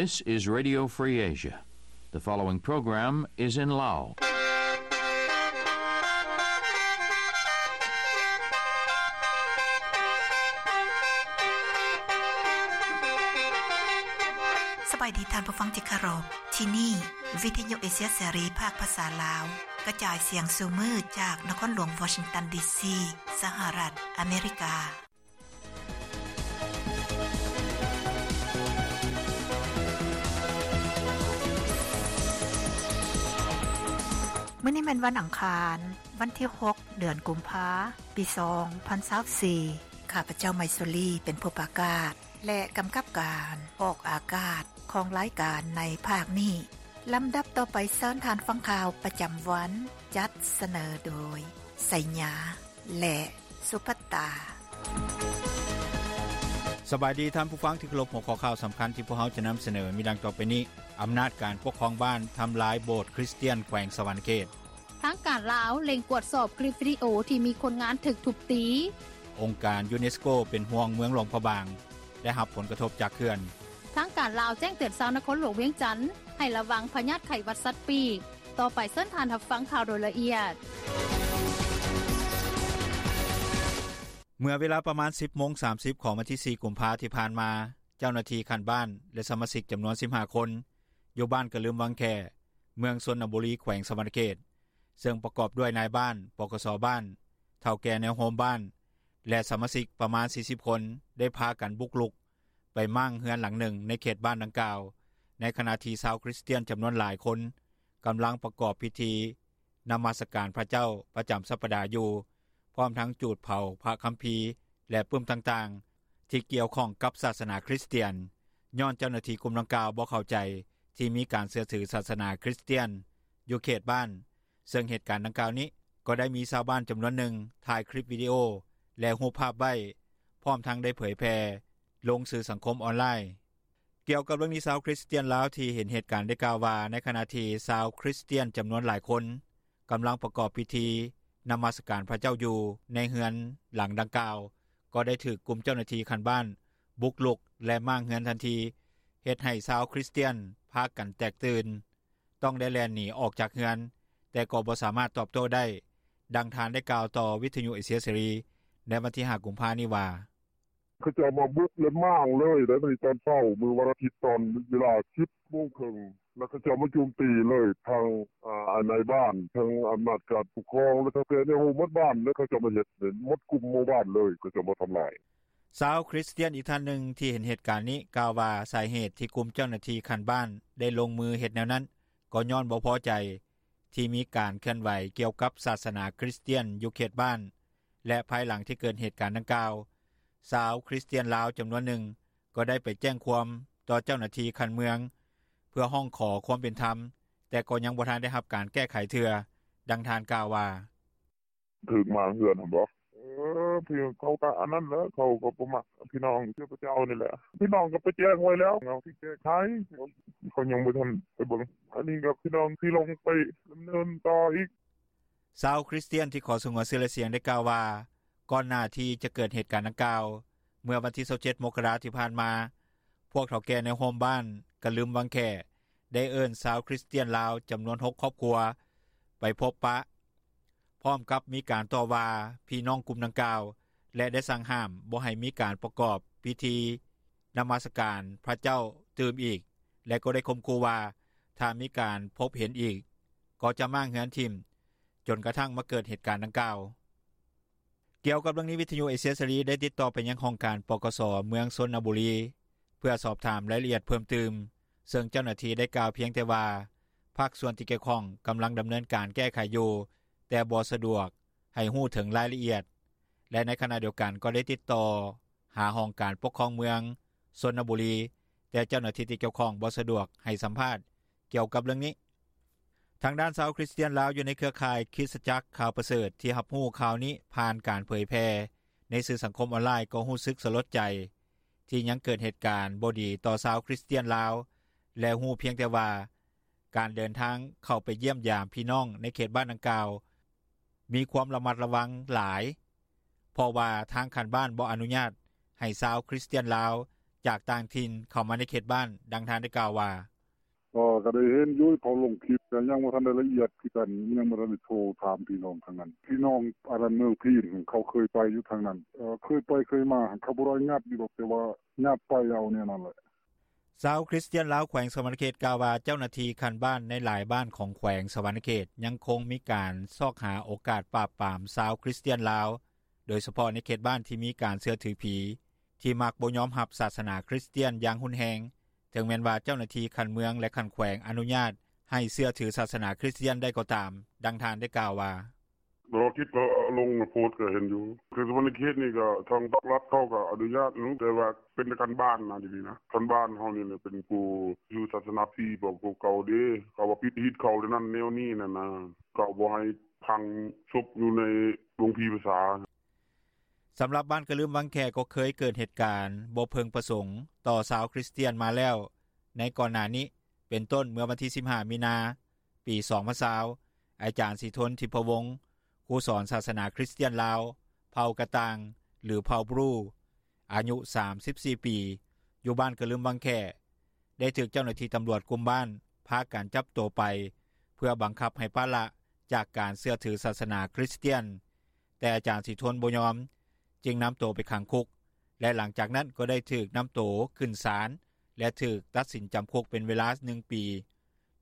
This is Radio Free Asia. The following program is in Lao. ສະບາຍດີທ່ານຜູ້ຟັງທີ່ເຄົາລົບ. ທີ່ນີ້ ວິທະຍຸເອເຊຍເສລີ ພາກພາສາລາວ ກະຈາຍສຽງສູ່ມື້ຈາກນະຄອນຫຼວງວໍຊິງຕັນ ດີຊີ ສະຫະລັດອາເມລິກາ. ມື້ນີ້ແມ່ນວັນອັງຄານ, ວັນທີຫົກ ເດືອນກຸມພາ ປີສອງພັນຊາວສີ່. ຂ້າພະເຈົ້າ ໄມຊູລີ ເປັນຜູ້ປະກາດ ແລະ ກຳກັບການອອກອາກາດຂອງລາຍການໃນພາກນີ້. ລຳດັບຕໍ່ໄປ ເຊີນທ່ານຟັງຂ່າວປະຈຳວັນ, ຈັດສະເໜີໂດຍ ໄຊຍາ ແລະ ສຸພັດຕາ. ສະບາຍດີທ່ານຜູ້ຟັງທີ່ເຄົາລົບ, ຫົວຂໍ້ຂ່າວສຳຄັນທີ່ພວກເຮົາຈະນຳສະເໜີມີດັ່ງຕໍ່ໄປນີ້. ອຳນາດການປົກຄອງບ້ານທຳລາຍໂບດຄຣິສຕຽນແຂວງສະຫວັນນະເຂດ. ທາງການລາວເລັ່ງກວດສອບຄລິບວິດີໂອທີ່ມີຄົນງານຖືກທຸບຕີ. ອົງການຢູເນສໂກເປັນຫ່ວງເມືອງຫຼວງພະບາງ ໄດ້ຮັບຜົນກະທົບຈາກເຂື່ອນ. ທາງການລາວແຈ້ງເຕືອນຊາວນະຄອນຫຼວງວຽງຈັນ ໃຫ້ລະວັງພະຍາດໄຂ້ຫວັດສັດປີກ. ຕໍ່ໄປເຊີນທ່ານຮັບຟັງຂ່າວໂດຍລະອຽດ. ເມື່ອເວລາປະມານ ສິບໂມງສາມສິບ ຂອງວັນທີສີ່ ກຸມພາທີ່ຜ່ານມາ, ເຈົ້າໜ້າທີ່ຂັ້ນບ້ານ ແລະ ສະມາຊິກຈຳນວນ ສິບຫ້າ ຄົນ ຢູ່ບ້ານກະລຶມວັງແຂ້ ເມືອງຊົນນະບູລີ ແຂວງສະຫວັນນະເຂດ ເຊິ່ງປະກອບດ້ວຍນາຍບ້ານ, ປກສ ບ້ານ, ເຖົ້າແກ່ແນວໂຮມບ້ານ ແລະ ສະມາຊິກປະມານ ສີ່ສິບ ຄົນ ໄດ້ພາກັນບຸກລຸກໄປມ້າງເຮືອນຫຼັງໜຶ່ງໃນເຂດບ້ານດັ່ງກ່າວ, ໃນຂະນະທີ່ຊາວຄຣິສຕຽນຈຳນວນຫຼາຍຄົນກຳລັງປະກອບພິທີນະມັດສະການພະເຈົ້າປະຈຳສັບປະດາຢູ່, ພ້ອມທັງຈູດເຜົາພະຄຳພີ ແລະ ປຶ້ມຕ່າງໆ ທີ່ກ່ຽວຂ້ອງກັບສາສະໜາຄຣິສຕຽນ, ຍ້ອນເຈົ້າໜ້າທີ່ກຸ່ມດັ່ງກ່າວບໍ່ເຂົ້າໃຈທີ່ມີການເຊື່ອຖືສາສະໜາຄຣິສຕຽນຢູ່ເຂດບ້ານ, ເຊິ່ງເຫດການດັ່ງກ່າວນີ້ກໍໄດ້ມີຊາວບ້ານຈຳນວນໜຶ່ງຖ່າຍຄລິບວິດີໂອ ແລະ ຮູບພາບໄວ້, ພ້ອມທັງໄດ້ເຜີຍແຜ່ລົງສື່ສັງຄົມອອນລາຍ. ກ່ຽວກັບເລື່ອງນີ້, ຊາວຄຣິສຕຽນລາວທີ່ເຫັນເຫດການໄດ້ກ່າວວ່າ ໃນຂະນະທີ່ຊາວຄຣິສຕຽນຈຳນວນຫຼາຍຄົນກຳລັງປະກອບພິທີນະມັດສະການພະເຈົ້າຢູ່ໃນເຮືອນຫຼັງດັ່ງກ່າວ, ກໍໄດ້ຖືກກຸ່ມເຈົ້າໜ້າທີ່ຂັ້ນບ້ານບຸກລຸກ ແລະ ມ້າງເຮືອນທັນທີ, ເຮັດໃຫ້ຊາວຄຣິສຕຽນພາກັນແຕກຕື່ນ, ຕ້ອງໄດ້ແລ່ນໜີອອກຈາກເຮືອນ, ແຕ່ກໍບໍ່ສາມາດຕອບໂຕ້ໄດ້, ດັ່ງທ່ານໄດ້ກ່າວຕໍ່ວິທະຍຸເອເຊຍເສລີໃນວັນທີຫ້າ ກຸມພານີ້ວ່າ. ເຂົາເຈົ້າມາບຸກ ແລະ ມ້າງເລີຍໄດ໋ ມື້ຕອນເຊົ້າ ມື້ວັນອາທິດ ຕອນເວລາ ສິບໂມງເຄິ່ງ ແລ້ວເຂົາເຈົ້າມາໂຈມຕີເລີຍ ທັງ ອາ ນາຍບ້ານ ທັງອຳນາດການປົກຄອງ ແລະ ເຖົ້າແກ່ແນວໂຮມໝົດບ້ານ ແລ້ວເຂົາເຈົ້າມາເຮັດ ໝົດກຸ່ມໝູ່ບ້ານເລີຍ ເຂົາເຈົ້າມາທຳລາຍ. ຊາວຄຣິສຕຽນອີກທ່ານໜຶ່ງທີ່ເຫັນເຫດການນີ້ກ່າວວ່າ ສາເຫດທີ່ກຸ່ມເຈົ້າໜ້າທີ່ຂັ້ນບ້ານໄດ້ລົງມືເຮັດແນວນັ້ນ ກໍຍ້ອນບໍ່ພໍໃຈທີ່ມີການເຄື່ອນໄຫວກ່ຽວກັບສາສະໜາຄຣິສຕຽນຢູ່ເຂດບ້ານ ແລະ ພາຍຫຼັງທີ່ເກີດເຫດການດັ່ງກ່າວ, ຊາວຄຣິສຕຽນລາວຈຳນວນໜຶ່ງກໍໄດ້ໄປແຈ້ງຄວາມຕໍ່ເຈົ້າໜ້າທີ່ຂັ້ນເມືອງ ເພື່ອຮ້ອງຂໍຄວາມເປັນທຳ, ແຕ່ກໍຍັງບໍ່ທັນໄດ້ຮັບການແກ້ໄຂເທື່ອ, ດັ່ງທ່ານກ່າວວ່າ. ຖືກມ້າງເຮືອນຫັ້ນບໍ? ເອີ ເຂົາກະອັນນັ້ນແຫຼະ ເຂົາກະບໍ່ມັກພີ່ນ້ອງເຈົ້າພະເຈົ້ານີ້ແຫຼະ ພີ່ນ້ອງກະໄປແຈ້ງໄວ້ແລ້ວ ເຮົາຊິແກ້ໄຂ ເຂົາຍັງບໍ່ທັນໄປເບິ່ງ ອັນນີ້ກະພີ່ນ້ອງຊິລົງໄປດຳເນີນຕໍ່ອີກ. ຊາວຄຣິສຕຽນທີ່ຂໍສະຫງວນຊື່ ແລະ ສຽງໄດ້ກ່າວວ່າ ກ່ອນໜ້າທີ່ຈະເກີດເຫດການດັ່ງກ່າວ, ເມື່ອວັນທີຊາວເຈັດ ມົກກະລາທີ່ຜ່ານມາ, ພວກເຖົ້າແກ່ແນວໂຮມບ້ານກະລຶມວັງແຂ້ ໄດ້ເອີ້ນຊາວຄຣິສຕຽນລາວຈຳນວນຫົກຄອບຄົວໄປພົບປະ, ພ້ອມກັບມີການຕໍ່ວ່າພີ່ນ້ອງກຸ່ມດັ່ງກ່າວ ແລະ ໄດ້ສັ່ງຫ້າມບໍ່ໃຫ້ມີການປະກອບພິທີນະມັດສະການພະເຈົ້າຕື່ມອີກ ແລະ ກໍໄດ້ຂົ່ມຂູ່ວ່າ ຖ້າມີການພົບເຫັນອີກ ກໍຈະມ້າງເຮືອນຖິ້ມ, ຈົນກະທັ້ງມາເກີດເຫດການດັ່ງກ່າວ. ກ່ຽວກັບເລື່ອງນີ້, ວິທະຍຸເອເຊຍເສລີໄດ້ຕິດຕໍ່ໄປຍັງຫ້ອງການ ປກສ ເມືອງຊົນນະບູລີ ເພື່ອສອບຖາມລາຍລະອຽດເພີ່ມຕື່ມ, ເຊິ່ງເຈົ້າໜ້າທີ່ໄດ້ກ່າວພຽງແຕ່ວ່າ ພາກສ່ວນທີ່ກ່ຽວຂ້ອງກຳລັງດຳເນີນການແກ້ໄຂຢູ່, ແຕ່ບໍ່ສະດວກໃຫ້ຮູ້ເຖິງລາຍລະອຽດ ແລະ ໃນຂະນະດຽວກັນກໍໄດ້ຕິດຕໍ່ຫາຫ້ອງການປົກຄອງເມືອງຊົນນະບູລີ, ແຕ່ເຈົ້າໜ້າທີ່ທີ່ກ່ຽວຂ້ອງບໍ່ສະດວກໃຫ້ສຳພາດກ່ຽວກັບເລື່ອງນີ້. ທາງດ້ານຊາວຄຣິສຕຽນລາວຢູ່ໃນເຄືອຂ່າຍຄຣິສຕະຈັກຂ່າວປະເສີດທີ່ຮັບຮູ້ຂ່າວນີ້ຜ່ານການເຜີຍແຜ່ໃນສື່ສັງຄົມອອນລາຍ ກໍຮູ້ສຶກສະຫຼົດໃຈທີ່ຍັງເກີດເຫດການບໍ່ດີຕໍ່ຊາວຄຣິສຕຽນລາວ ແລະ ຮູ້ພຽງແຕ່ວ່າການເດີນທາງເຂົ້າໄປຢ້ຽມຢາມພີ່ນ້ອງໃນເຂດບ້ານດັ່ງກ່າວມີຄວາມລະມັດລະວັງຫຼາຍ, ເພາະວ່າທາງຂັ້ນບ້ານບໍ່ອະນຸຍາດໃຫ້ຊາວຄຣິສຕຽນລາວ ຈາກຕ່າງຖິ່ນເຂົ້າມາໃນເຂດບ້ານ. ດັ່ງທ່ານໄດ້ກ່າວວ່າ: “ເອີ ກະໄດ້ເຫັນຢູ່ ເຂົາລົງຄລິບ ກະຍັງບໍ່ທັນໄດ້ລະອຽດຄືກັນ ຍັງບໍ່ທັນໄດ້ໂທຖາມພີ່ນ້ອງທາງນັ້ນ ພີ່ນ້ອງອັນນັ້ນ ເມືອງພີນ ເຂົາເຄີຍໄປຢູ່ທາງນັ້ນ ເຄີຍໄປເຄີຍມາ ເຂົາບໍ່ໄດ້ຍັບຢູ່ດອກ ແຕ່ວ່າຍັບໄປເອົາແນວນັ້ນແຫຼະ.” ຊາວຄຣິສຕຽນລາວ ແຂວງສະຫວັນນະເຂດ ກ່າວວ່າ ເຈົ້າໜ້າທີ່ຂັ້ນບ້ານໃນຫຼາຍບ້ານຂອງແຂວງສະຫວັນນະເຂດ ຍັງຄົງມີການຊອກຫາໂອກາດປາບປາມຊາວຄຣິສຕຽນລາວ ໂດຍສະເພາະໃນເຂດບ້ານທີ່ມີການເຊື່ອຖືຜີ ທີ່ມັກບໍ່ຍອມຮັບສາສະໜາຄຣິສຕຽນຢ່າງຮຸນແຮງ ເຖິງແມ່ນວ່າເຈົ້າໜ້າທີ່ຂັ້ນເມືອງ ແລະ ຂັ້ນແຂວງອະນຸຍາດໃຫ້ເຊື່ອຖືສາສະໜາຄຣິສຕຽນໄດ້ກໍຕາມ. ດັ່ງທ່ານໄດ້ກ່າວວ່າ: “ລາວຄິດກໍລົງໂພສກໍເຫັນຢູ່ ຄືສະຫວັນນະເຂດນີ້ກໍທາງພາກລັດເຂົາກໍອະນຸຍາດຢູ່ ແຕ່ວ່າເປັນແຕ່ຂັ້ນບ້ານນະ ດຽວນີ້ນະ ຂັ້ນບ້ານເຮົານີ້ແຫຼະ ເປັນຜູ້ຢູ່ສາສະໜາພີ ພວກເກົ່າເດ້ ເຂົາວ່າປິດຮີດເຂົາແນວນັ້ນແນວນີ້ຫັ້ນນະ ເຂົາບໍ່ໃຫ້ຝັງສົບຢູ່ໃນໂຮງຜີພາສາ.” ສຳລັບບ້ານກະລຶມວັງແຂ້ ກໍເຄີຍເກີດເຫດການບໍ່ເພິ່ງປະສົງຕໍ່ຊາວຄຣິສຕຽນມາແລ້ວໃນກ່ອນໜ້ານີ້ ເປັນຕົ້ນເມື່ອວັນທີສິບຫ້າ ມີນາ ປີສອງພັນຊາວ ອາຈານສີທົນ ທິບພະວົງ ຄູສອນສາສະໜາຄຣິສຕຽນລາວ ເຜົ່າກະຕ່າງ ຫຼື ເຜົ່າບຣູ ອາຍຸສາມສິບສີ່ປີ ຢູ່ບ້ານກະລຶມວັງແຂ້ ໄດ້ຖືກເຈົ້າໜ້າທີ່ຕຳຫຼວດກຸ່ມບ້ານ ພາກັນຈັບໂຕໄປ ເພື່ອບັງຄັບໃຫ້ປະລະຈາກການເຊື່ອຖືສາສະໜາຄຣິສຕຽນ ແຕ່ອາຈານສີທົນບໍ່ຍອມ ຈຶ່ງນຳໂຕໄປຂັງຄຸກ ແລະ ຫຼັງຈາກນັ້ນກໍໄດ້ຖືກນຳໂຕຂຶ້ນສານ ແລະ ຖືກຕັດສິນຈຳຄຸກເປັນເວລາໜຶ່ງປີ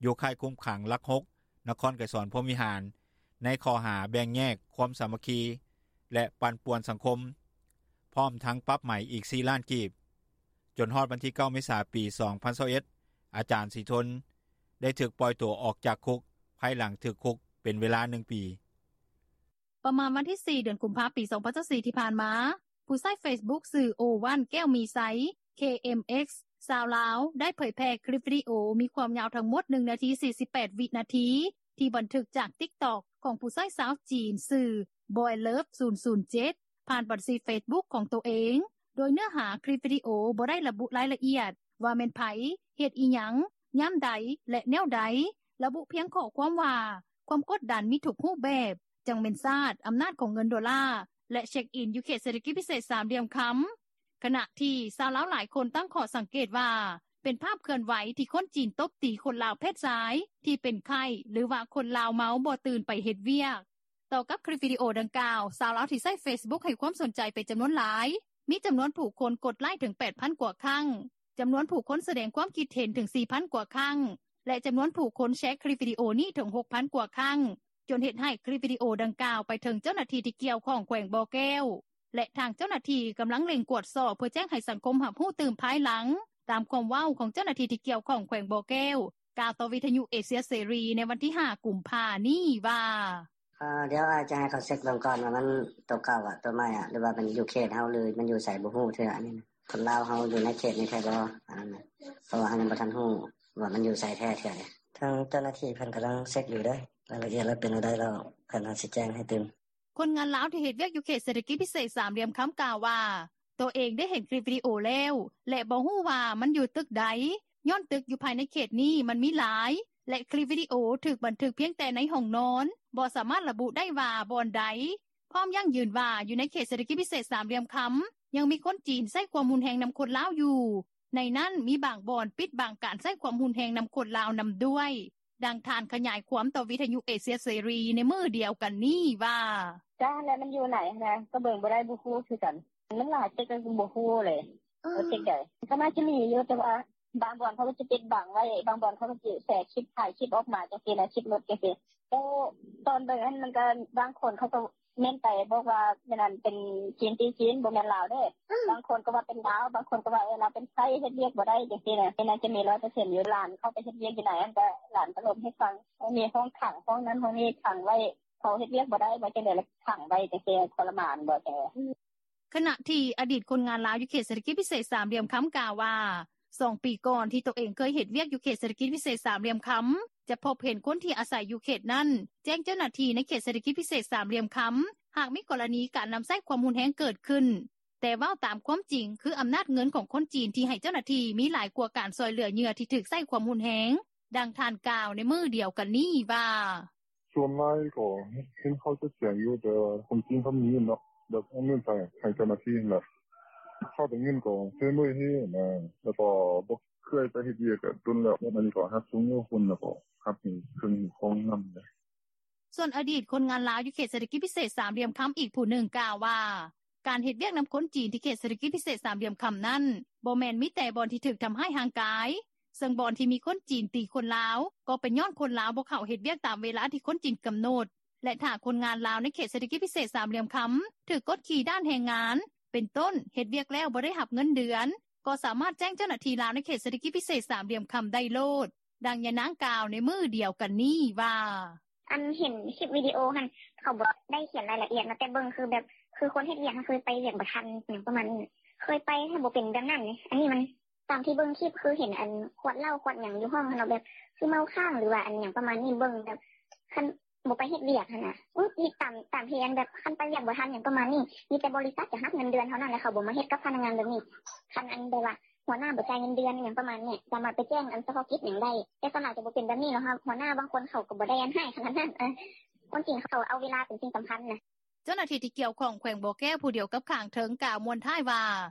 ຢູ່ຄ້າຍຄຸມຂັງຫຼັກຫົກ ນະຄອນໄກສອນພົມວິຫານ ໃນຂໍ້ຫາແບ່ງແຍກຄວາມສາມັກຄີ ແລະ ປັ່ນປ່ວນສັງຄົມ ພ້ອມທັງປັບໃໝອີກສີ່ລ້ານກີບ. ຈົນຮອດວັນທີເກົ້າ ເມສາ ປີສອງພັນຊາວເອັດ ອາຈານສີທົນ ໄດ້ຖືກປ່ອຍໂຕອອກຈາກຄຸກ ພາຍຫຼັງຖືກຄຸກເປັນເວລາໜຶ່ງປີ. ປະມານວັນທີສີ່ ເດືອນກຸມພາ ປີສອງພັນຊາວສີ່ ທີ່ຜ່ານມາ ຜູ້ໃຊ້ເຟສບຸກຊື່ ໂອວັນ ແກ້ວມີໄຊ ເຄເອັມເອັກ ຊາວລາວ ໄດ້ເຜີຍແຜ່ຄລິບວິດີໂອມີຄວາມຍາວທັງໝົດໜຶ່ງນາທີສີ່ສິບແປດວິນາທີ ທີ່ບັນທຶກຈາກຕິກຕັອກຂອງຜູ້ໃຊ້ຊາວຈີນຊື່ ບອຍເລີຟ ສູນສູນເຈັດ ຜ່ານບັນຊີເຟສບຸກຂອງໂຕເອງ ໂດຍເນື້ອຫາຄລິບວິດີໂອບໍ່ໄດ້ລະບຸລາຍລະອຽດວ່າແມ່ນໃຜ, ເຮັດອີ່ຫຍັງ, ຍາມໃດ ແລະ ແນວໃດ, ລະບຸພຽງຂໍ້ຄວາມວ່າ ຄວາມກົດດັນມີທຸກຮູບແບບ, ຈັ່ງແມ່ນຊາດ, ອຳນາດຂອງເງິນໂດລາ ແລະ ເຊັກອິນຢູ່ເຂດເສດຖະກິດພິເສດສາມຫຼ່ຽມຄຳ. ຂະນະທີ່ຊາວລາວຫຼາຍຄົນຕັ້ງຂໍ້ສັງເກດວ່າ ເປັນພາບເຄື່ອນໄຫວທີ່ຄົນຈີນຕົບຕີຄົນລາວເພດຊາຍທີ່ເປັນໄຂ້ ຫຼືວ່າຄົນລາວເມົາບໍ່ຕື່ນໄປເຮັດວຽກ. ຕໍ່ກັບຄລິບວິດີໂອດັ່ງກ່າວ ຊາວລາວທີ່ໃຊ້ເຟສບຸກໃຫ້ຄວາມສົນໃຈເປັນຈຳນວນຫຼາຍ, ມີຈຳນວນຜູ້ຄົນກົດໄລ້ເຖິງແປດພັນກວ່າຄັ້ງ, ຈຳນວນຜູ້ຄົນສະແດງຄວາມຄິດເຫັນເຖິງສີ່ພັນກວ່າຄັ້ງ ແລະ ຈຳນວນຜູ້ຄົນແຊຄລິບວິດີໂອນີ້ເຖິງຫົກພັນກວ່າຄັ້ງ ຈົນເຮັດໃຫ້ຄລິບວິດີໂອດັ່ງກ່າວໄປເຖິງເຈົ້າໜ້າທີ່ທີ່ກ່ຽວຂ້ອງແຂວງບໍ່ແກ້ວ ແລະ ທາງເຈົ້າໜ້າທີ່ກຳລັງເລັ່ງກວດສອບເພື່ອແຈ້ງໃຫ້ສັງຄົມຮັບຮູ້ຕື່ມພາຍຫຼັງ, ຕາມຄວາມເວົ້າຂອງເຈົ້າໜ້າທີ່ທີ່ກ່ຽວຂ້ອງແຂວງບໍ່ແກ້ວ ກ່າວຕໍ່ວິທະຍຸເອເຊຍເສລີໃນວັນທີຫ້າ ກຸມພານີ້ວ່າ: “ເອີ ດຽວອ້າຍຈະໃຫ້ເຂົາເຊັກເບິ່ງກ່ອນວ່າມັນໂຕເກົ່າອະ ໂຕໃໝ່ອະ ຫຼືວ່າມັນຢູ່ເຂດເຮົາ ຫຼືມັນຢູ່ໃສບໍ່ຮູ້ເທື່ອ ອັນນີ້ນະ ຄົນລາວເຮົາຢູ່ໃນເຂດນີ້ແທ້ບໍ່ ອັນນັ້ນນະ ເພາະວ່າເຮົາຍັງບໍ່ທັນຮູ້ວ່າມັນຢູ່ໃສແທ້ເທື່ອເດ. ທາງເຈົ້າໜ້າທີ່ເພິ່ນກຳລັງເຊັກຢູ່ເດ້ ລາຍລະອຽດລະເປັນແນວໃດ ລະເພິ່ນອາດຊິແຈ້ງໃຫ້ຕື່ມ.” ຄົນງານລາວທີ່ເຮັດວຽກຢູ່ເຂດເສດຖະກິດພິເສດສາມຫຼ່ຽມຄຳກ່າວວ່າ ໂຕເອງໄດ້ເຫັນຄລິບວິດີໂອແລ້ວ ແລະ ບໍ່ຮູ້ວ່າມັນຢູ່ຕຶກໃດ ຍ້ອນຕຶກຢູ່ພາຍໃນເຂດນີ້ມັນມີຫຼາຍ ແລະ ຄລິບວິດີໂອຖືກບັນທຶກພຽງແຕ່ໃນຫ້ອງນອນ ບໍ່ສາມາດລະບຸໄດ້ວ່າບ່ອນໃດ ພ້ອມຢັ້ງຢືນວ່າຢູ່ໃນເຂດເສດຖະກິດພິເສດສາມຫຼ່ຽມຄຳ ຍັງມີຄົນຈີນໃຊ້ຄວາມຮຸນແຮງນຳຄົນລາວຢູ່ ໃນນັ້ນມີບາງບ່ອນປິດບັງການໃຊ້ຄວາມຮຸນແຮງນຳຄົນລາວນຳດ້ວຍ. ດັ່ງທ່ານຂະຫຍາຍຄວາມຕໍ່ວິທະຍຸເອເຊຍເສລີໃນມື້ດຽວກັນນີ້ວ່າ: “ກະຫັ້ນແຫຼະ ມັນຢູ່ໃນຫັ້ນນະ ກະເບິ່ງບໍ່ໄດ້ ບໍ່ຮູ້ຄືກັນ ມັນຫຼາຍເຈັກກະບໍ່ຮູ້ເລີຍ ເອີ ວ່າເຈັກໃດ ກະໜ້າຈະມີຢູ່ ແຕ່ວ່າບາງບ່ອນເຂົາກະຈະປິດບັງໄວ້ ບາງບ່ອນເຂົາກະຈະແຊຄລິບ ຖ່າຍຄລິບອອກມາຈັ່ງຊີ້ນະ ຄລິບຫຼຸດຈັ່ງຊີ້ ແຕ່ຕອນເບິ່ງຫັ້ນ ມັນກະບາງຄົນເຂົາກະ ແມ່ນໄປບອກວ່າແມ່ນອັນເປັນຈີນຕີຈີນ ບໍ່ແມ່ນລາວເດ້ ບາງຄົນກະວ່າເປັນລາວ ບາງຄົນກະວ່າເອີ ລາວເປັນໄຂ້ ເຮັດວຽກບໍ່ໄດ້ຈັ່ງຊີ້ນະ ແມ່ນໜ້າຈະມີຮ້ອຍເປີເຊັນຢູ່ ຫຼານເຂົາໄປເຮັດວຽກຢູ່ໃນຫັ້ນກະ ຫຼານກະລົມໃຫ້ຟັງ ມີຫ້ອງຂັງ ຫ້ອງນັ້ນຫ້ອງນີ້ຂັງໄວ້ ເຂົາເຮັດວຽກບໍ່ໄດ້ ວ່າຈັ່ງໃດລະຂັງໄວ້ຈັ່ງຊີ້ ທໍລະມານບໍ່ຈັ່ງໃດ.” ຂະນະທີ່ອະດີດຄົນງານລາວຢູ່ເຂດເສດຖະກິດພິເສດສາມຫຼ່ຽມຄຳກ່າວວ່າ ສອງປີກ່ອນທີ່ໂຕເອງເຄີຍເຮັດວຽກຢູ່ເຂດເສດຖະກິດພິເສດສາມຫຼ່ຽມຄຳ ຈະພົບເຫັນຄົນທີ່ອາໄສຢູ່ເຂດນັ້ນ ແຈ້ງເຈົ້າໜ້າທີ່ໃນເຂດເສດຖະກິດພິເສດສາມຫຼ່ຽມຄຳ ຫາກມີກໍລະນີການນຳໃຊ້ຄວາມຮຸນແຮງເກີດຂຶ້ນ ແຕ່ເວົ້າຕາມຄວາມຈິງ ຄືອຳນາດເງິນຂອງຄົນຈີນທີ່ໃຫ້ເຈົ້າໜ້າທີ່ມີຫຼາຍກວ່າການຊ່ອຍເຫຼືອເຫຍື່ອທີ່ຖືກໃຊ້ຄວາມຮຸນແຮງ. ດັ່ງທ່ານກ່າວໃນມື້ດຽວກັນນີ້ວ່າ: “ສ່ວນຫຼາຍກະເຫັນເຂົາຈະແຈ້ງຢູ່ ແຕ່ວ່າຄົນຈີນເຂົາມີເນາະ ແບບເອົາເງິນໃຫ້ເຈົ້າໜ້າທີ່ຫັ້ນແຫຼະ ເຂົາໄດ້ເງິນກໍເຊີນເມີຍເຮນະ ແລ້ວກໍບໍ່ເຄີຍໄປເຮັດວຽກກະດົນແລ້ວ ອັນນີ້ກໍຮັກສົ່ງເມືອພຸ້ນ ແລ້ວກໍຮັກໃຫ້ເຄິ່ງຂອງນຳ.” ສ່ວນອະດີດຄົນງານລາວຢູ່ເຂດເສດຖະກິດພິເສດສາມຫຼ່ຽມຄຳອີກຜູ້ໜຶ່ງກ່າວວ່າ ການເຮັດວຽກນຳຄົນຈີນທີ່ເຂດເສດຖະກິດພິເສດສາມຫຼ່ຽມຄຳນັ້ນ ບໍ່ແມ່ນມີແຕ່ບ່ອນທີ່ຖືກທຳຮ້າຍຮ່າງກາຍ ເຊິ່ງບ່ອນທີ່ມີຄົນຈີນຕີຄົນລາວ ກໍເປັນຍ້ອນຄົນລາວບໍ່ເຂົ້າເຮັດວຽກຕາມເວລາທີ່ຄົນຈີນກຳນົດ ແລະ ຖ້າຄົນງານລາວໃນເຂດເສດຖະກິດພິເສດສາມຫຼ່ຽມຄຳ ຖືກກົດຂີ່ດ້ານແຮງງານ ເປັນຕົ້ນ ເຮັດວຽກແລ້ວບໍ່ໄດ້ຮັບເງິນເດືອນ ກໍສາມາດແຈ້ງເຈົ້າໜ້າທີ່ລາວໃນເຂດເສດຖະກິດພິເສດສາມຫຼ່ຽມຄຳໄດ້ໂລດ. ດັ່ງຍານາງກ່າວໃນມື້ດຽວກັນນີ້ວ່າ: “ອັນເຫັນຄລິບວິດີໂອຫັ້ນ ເຂົາບໍ່ໄດ້ຂຽນລາຍລະອຽດເນາະ ແຕ່ເບິ່ງຄືແບບ ຄືຄົນເຮັດວຽກຫັ້ນ ຄືໄປວຽກບໍ່ທັນຫຍັງປະມານນີ້ ເຄີຍໄປຫັ້ນບໍ່ເປັນແບບນັ້ນເດ້ ອັນນີ້ມັນ ຕາມທີ່ເບິ່ງຄລິບ ຄືເຫັນອັນຂວດເຫຼົ້າຂວດຫຍັງຢູ່ຫ້ອງຫັ້ນເນາະ ແບບຄືເມົາຄ້າງ ຫຼືວ່າອັນຫຍັງປະມານນີ້ ເບິ່ງແບບຄັນບໍ່ໄປເຮັດວຽກຫັ້ນນະ ຕາມ ຕາມທີ່ອັນແບບຄັນໄປວຽກບໍ່ທັນຫຍັງປະມານນີ້ ມີແຕ່ບໍລິສັດຈະຮັບເງິນເດືອນເທົ່ານັ້ນ ແລ້ວເຂົາບໍ່ມາເຮັດກັບພະນັກງານແບບນີ້ ຄັນອັນແບບວ່າຫົວໜ້າບໍ່ຈ່າຍເງິນເດືອນຫຍັງປະມານນີ້ ສາມາດໄປແຈ້ງອັນສະເພາະກິດຫຍັງໄດ້ ແຕ່ສ່ວນຫຼາຍຈະບໍ່ເປັນແບບນີ້ເນາະ ຫົວໜ້າບາງຄົນເຂົາກໍບໍ່ໄດ້ອັນຮ້າຍຂະໜາດນັ້ນ ຄົນຈີນເຂົາເອົາເວລາເປັນສິ່ງສຳຄັນນະ.” ເຈົ້າໜ້າທີ່ທີ່ກ່ຽວຂ້ອງແຂວງບໍ່ແກ້ວ ຜູ້ດຽວກັບຂ້າງເທິງ ກ່າວມ້ວນທ້າຍວ່າ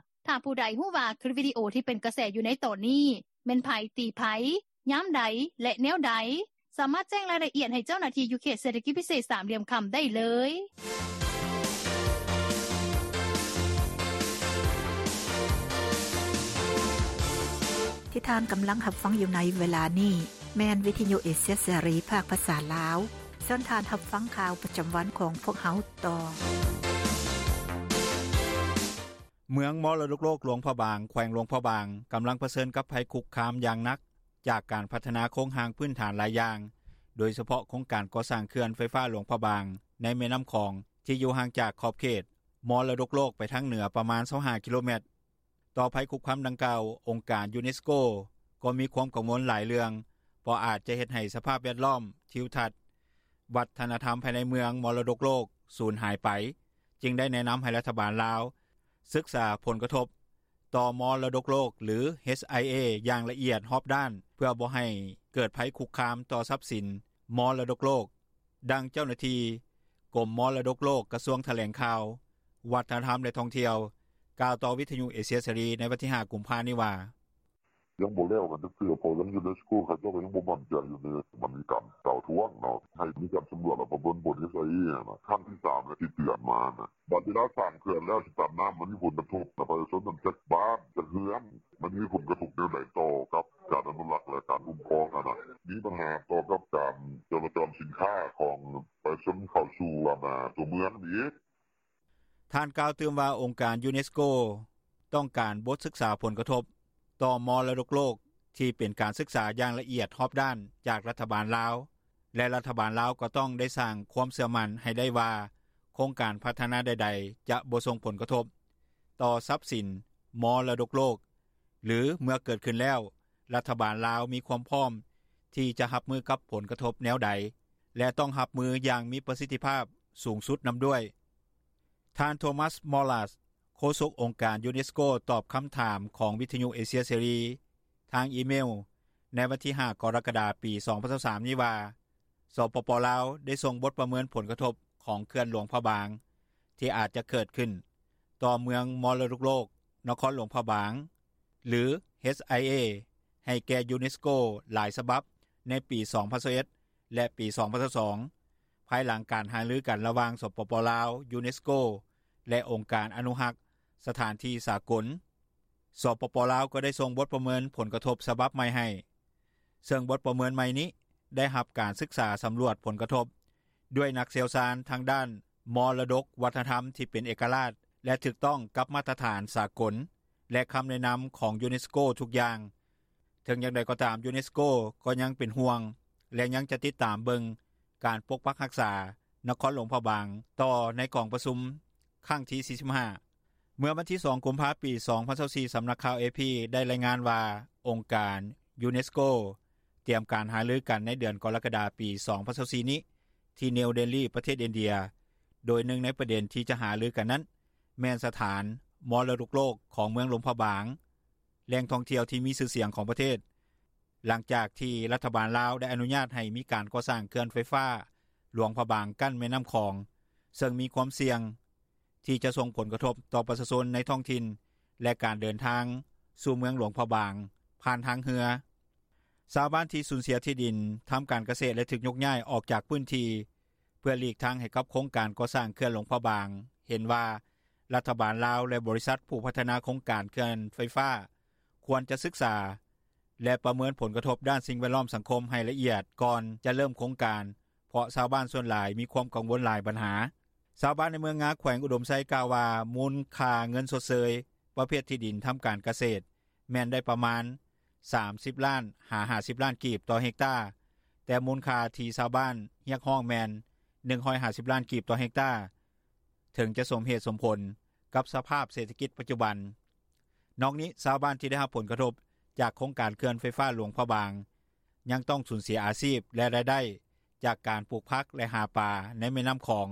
ຖ້າຜູ້ໃດຮູ້ວ່າຄລິບວິດີໂອທີ່ເປັນກະແສຢູ່ໃນຕອນນີ້ ແມ່ນໃຜ ຕີໃຜ ຍາມໃດ ແລະ ແນວໃດ ສາມາດແຈ້ງລາຍລະອຽດໃຫ້ເຈົ້າໜ້າທີ່ຢູ່ເຂດເສດຖະກິດພິເສດສາມຫຼ່ຽມຄຳໄດ້ເລີຍ. ທີ່ທ່ານກຳລັງຮັບຟັງຢູ່ໃນເວລານີ້ ແມ່ນວິທະຍຸເອເຊຍເສລີ ພາກພາສາລາວ. ເຊີນທ່ານຮັບຟັງຂ່າວປະຈຳວັນຂອງພວກເຮົາຕໍ່. ເມືອງມໍລະດົກໂລກຫຼວງພະບາງ ແຂວງຫຼວງພະບາງ ກຳລັງປະເຊີນກັບໄພຄຸກຄາມຢ່າງໜັກ ຈາກການພັດທະນາໂຄງຮ່າງພື້ນຖານຫຼາຍຢ່າງ, ໂດຍສະເພາະໂຄງການກໍ່ສ້າງເຂື່ອນໄຟຟ້າຫຼວງພະບາງ ໃນແມ່ນ້ຳຂອງ ທີ່ຢູ່ຫ່າງຈາກຂອບເຂດມໍລະດົກໂລກໄປທາງເໜືອປະມານຊາວຫ້າກິໂລແມັດ. ຕໍ່ໄພຄຸກຄາມດັ່ງກ່າວ, ອົງການຢູເນສໂກກໍມີຄວາມກັງວົນຫຼາຍເລື່ອງ, ເພາະອາດຈະເຮັດໃຫ້ສະພາບແວດລ້ອມ, ທິວທັດ, ວັດທະນະທຳພາຍໃນເມືອງມໍລະດົກໂລກສູນຫາຍໄປ, ຈຶ່ງໄດ້ແນະນຳໃຫ້ລັດຖະບານລາວສຶກສາຜົນກະທົບຕໍ່ມໍລະດົກໂລກ ຫຼື ເອັດໄອເອ ຢ່າງລະອຽດຮອບດ້ານ ເພື່ອບໍ່ໃຫ້ເກີດໄພຄຸກຄາມຕໍ່ຊັບສິນມໍລະດົກໂລກ. ດັ່ງເຈົ້າໜ້າທີ່ກົມມໍລະດົກໂລກ ກະຊວງຖະແຫຼງຂ່າວ, ວັດທະນະທຳ ແລະ ທ່ອງທ່ຽວ ກ່າວຕໍ່ວິທະຍຸເອເຊຍເສລີໃນວັນທີຫ້າ ກຸມພານີ້ວ່າ: “ຍັງບໍ່ແລ້ວກັນຈັກເທື່ອ ເພາະທາງຢູເນສໂກເຂົາເຈົ້າກໍຍັງບໍ່ໝັ້ນໃຈຢູ່ເດ້ ມັນມີການກ່າວທວງເນາະ ໃຫ້ມີການສຳຫຼວດ ແລ້ວປະເມີນຜົນ ເອັດໄອເອ ຫັ້ນນະ ຄັ້ງທີສາມແລ້ວທີ່ເຕືອນມານະ ບາດເວລາສ້າງເຂື່ອນແລ້ວ ຊິຕັນນ້ຳ ມັນມີຜົນກະທົບຕໍ່ປະຊາຊົນນັ້ນ ຈັກບ້ານ ຈັກເຮືອນ ມັນມີຜົນກະທົບແນວໃດຕໍ່ກັບການອະນຸລັກ ແລະ ການຄຸ້ມຄອງຫັ້ນນະ ມີບັນຫາຕໍ່ກັບການຈະລາຈອນສິນຄ້າຂອງປະຊາຊົນເຂົ້າສູ່ ອັນນາ ຕົວເມືອງອີກ.” ທ່ານກ່າວຕື່ມວ່າ ອົງການຢູເນສໂກຕ້ອງການບົດສຶກສາຜົນກະທົບຕໍ່ມໍລະດົກໂລກ ທີ່ເປັນການສຶກສາຢ່າງລະອຽດຮອບດ້ານຈາກລັດຖະບານລາວ ແລະ ລັດຖະບານລາວກໍຕ້ອງໄດ້ສ້າງຄວາມເຊື່ອໝັ້ນໃຫ້ໄດ້ວ່າ ໂຄງການພັດທະນາໃດໆ ຈະບໍ່ສົ່ງຜົນກະທົບຕໍ່ຊັບສິນມໍລະດົກໂລກ ຫຼື ເມື່ອເກີດຂຶ້ນແລ້ວ ລັດຖະບານລາວມີຄວາມພ້ອມທີ່ຈະຮັບມືກັບຜົນກະທົບແນວໃດ ແລະ ຕ້ອງຮັບມືຢ່າງມີປະສິດທິພາບສູງສຸດນຳດ້ວຍ. ທ່ານ ໂທມັສ ມໍລາສ ໂຄສົກອົງການຢູເນສໂກ ຕອບຄຳຖາມຂອງວິທະຍຸເອເຊຍເສລີທາງອີເມວໃນວັນທີຫ້າ ກໍລະກະດາ ປີສອງພັນຊາວສາມນີ້ວ່າ ສປປ ລາວ ໄດ້ສົ່ງບົດປະເມີນຜົນກະທົບຂອງເຂື່ອນຫຼວງພະບາງ ທີ່ອາດຈະເກີດຂຶ້ນຕໍ່ເມືອງມໍລະດົກໂລກນະຄອນຫຼວງພະບາງ ຫຼື ເອັດໄອເອ ໃຫ້ແກ່ຢູເນສໂກຫຼາຍສະບັບໃນປີສອງພັນຊາວເອັດ ແລະ ປີສອງພັນຊາວສອງ ພາຍຫຼັງການຫາລືກັນລະຫວ່າງ ສປປ ລາວ, ຢູເນສໂກ ແລະ ອົງການອະນຸຮັກສະຖານທີ່ສາກົນ. ສປປ ລາວ ກໍໄດ້ສົ່ງບົດປະເມີນຜົນກະທົບສະບັບໃໝ່ໃຫ້ ເຊິ່ງບົດປະເມີນໃໝ່ນີ້ໄດ້ຮັບການສຶກສາສຳຫຼວດຜົນກະທົບດ້ວຍນັກຊ່ຽວຊານທາງດ້ານມໍລະດົກວັດທະນະທຳທີ່ເປັນເອກະລາດ ແລະ ຖືກຕ້ອງກັບມາດຕະຖານສາກົນ ແລະ ຄຳແນະນຳຂອງຢູເນສໂກທຸກຢ່າງ. ເຖິງຢ່າງໃດກໍຕາມ, ຢູເນສໂກກໍຍັງເປັນຫ່ວງ ແລະ ຍັງຈະຕິດຕາມເບິ່ງການປົກປັກຮັກສານະຄອນຫຼວງພະບາງຕໍ່ໃນກອງປະຊຸມຄັ້ງທີສີ່ສິບຫ້າ. ເມື່ອວັນທີສອງ ກຸມພາ ປີສອງພັນຊາວສີ່ ສຳນັກຂ່າວເອພີໄດ້ລາຍງານວ່າ ອົງການຢູເນສໂກຕຽມການຫາລືກັນໃນເດືອນກໍລະກະດາ ປີສອງພັນຊາວສີ່ນີ້ ທີ່ນິວເດລີ ປະເທດອິນເດຍ ໂດຍໜຶ່ງໃນປະເດັນທີ່ຈະຫາລືກັນນັ້ນ ແມ່ນສະຖານມໍລະດົກໂລກຂອງເມືອງຫຼວງພະບາງ, ແຫຼ່ງທ່ອງທ່ຽວທີ່ມີຊື່ສຽງຂອງປະເທດ, ຫຼັງຈາກທີ່ລັດຖະບານລາວໄດ້ອະນຸຍາດໃຫ້ມີການກໍ່ສ້າງເຂື່ອນໄຟຟ້າຫຼວງພະບາງກັ້ນແມ່ນ້ຳຂອງ, ເຊິ່ງມີຄວາມສ່ຽງທີ່ຈະສົ່ງຜົນກະທົບຕໍ່ປະຊາຊົນໃນທ້ອງຖິ່ນ ແລະການເດີນທາງ ສູ່ເມືອງຫຼວງພະບາງ ຜ່ານທາງເຮືອ. ຊາວບ້ານທີ່ສູນເສຍທີ່ດິນ ທຳການກະເສດ ແລະຖືກຍົກຍ້າຍອອກຈາກພື້ນທີ່ ເພື່ອຫຼີກທາງໃຫ້ກັບໂຄງການກໍ່ສ້າງເຂື່ອນຫຼວງພະບາງ ເຫັນວ່າລັດຖະບານລາວ ແລະບໍລິສັດຜູ້ພັດທະນາໂຄງການເຂື່ອນໄຟຟ້າ ຄວນຈະສຶກສາ ແລະປະເມີນຜົນກະທົບດ້ານສິ່ງແວດລ້ອມ-ສັງຄົມ ໃຫ້ລະອຽດກ່ອນຈະເລີ່ມໂຄງການ ເພາະຊາວບ້ານສ່ວນຫຼາຍ ມີຄວາມກັງວົນຫຼາຍບັນຫາ. ຊາວບ້ານໃນເມືອງງາ ແຂວງອຸດົມໄຊ ກ່າວວ່າມູນຄ່າເງິນຊົດເຊີຍ ປະເພດທີ່ດິນທຳການກະເສດ ແມ່ນໄດ້ປະມານ 30 ລ້ານຫາ 50 ລ້ານກີບຕໍ່ເຮັກຕາ ແຕ່ມູນຄ່າທີ່ຊາວບ້ານຮຽກຮ້ອງແມ່ນ 150 ລ້ານກີບຕໍ່ເຮັກຕາ ເຖິງຈະສົມເຫດສົມຜົນ ກັບສະພາບເສດຖະກິດປັດຈຸບັນ. ນອກນີ້ຊາວບ້ານທີ່ໄດ້ຮັບຜົນກະທົບ ຈາກໂຄງການເຂື່ອນໄຟຟ້າຫຼວງພະບາງ ຍັງຕ້ອງສູນເສຍອາຊີບ ແລະລາຍໄດ້ ຈາກການປູກຜັກ ແລະຫາປາໃນແມ່ນໍ້າຂອງ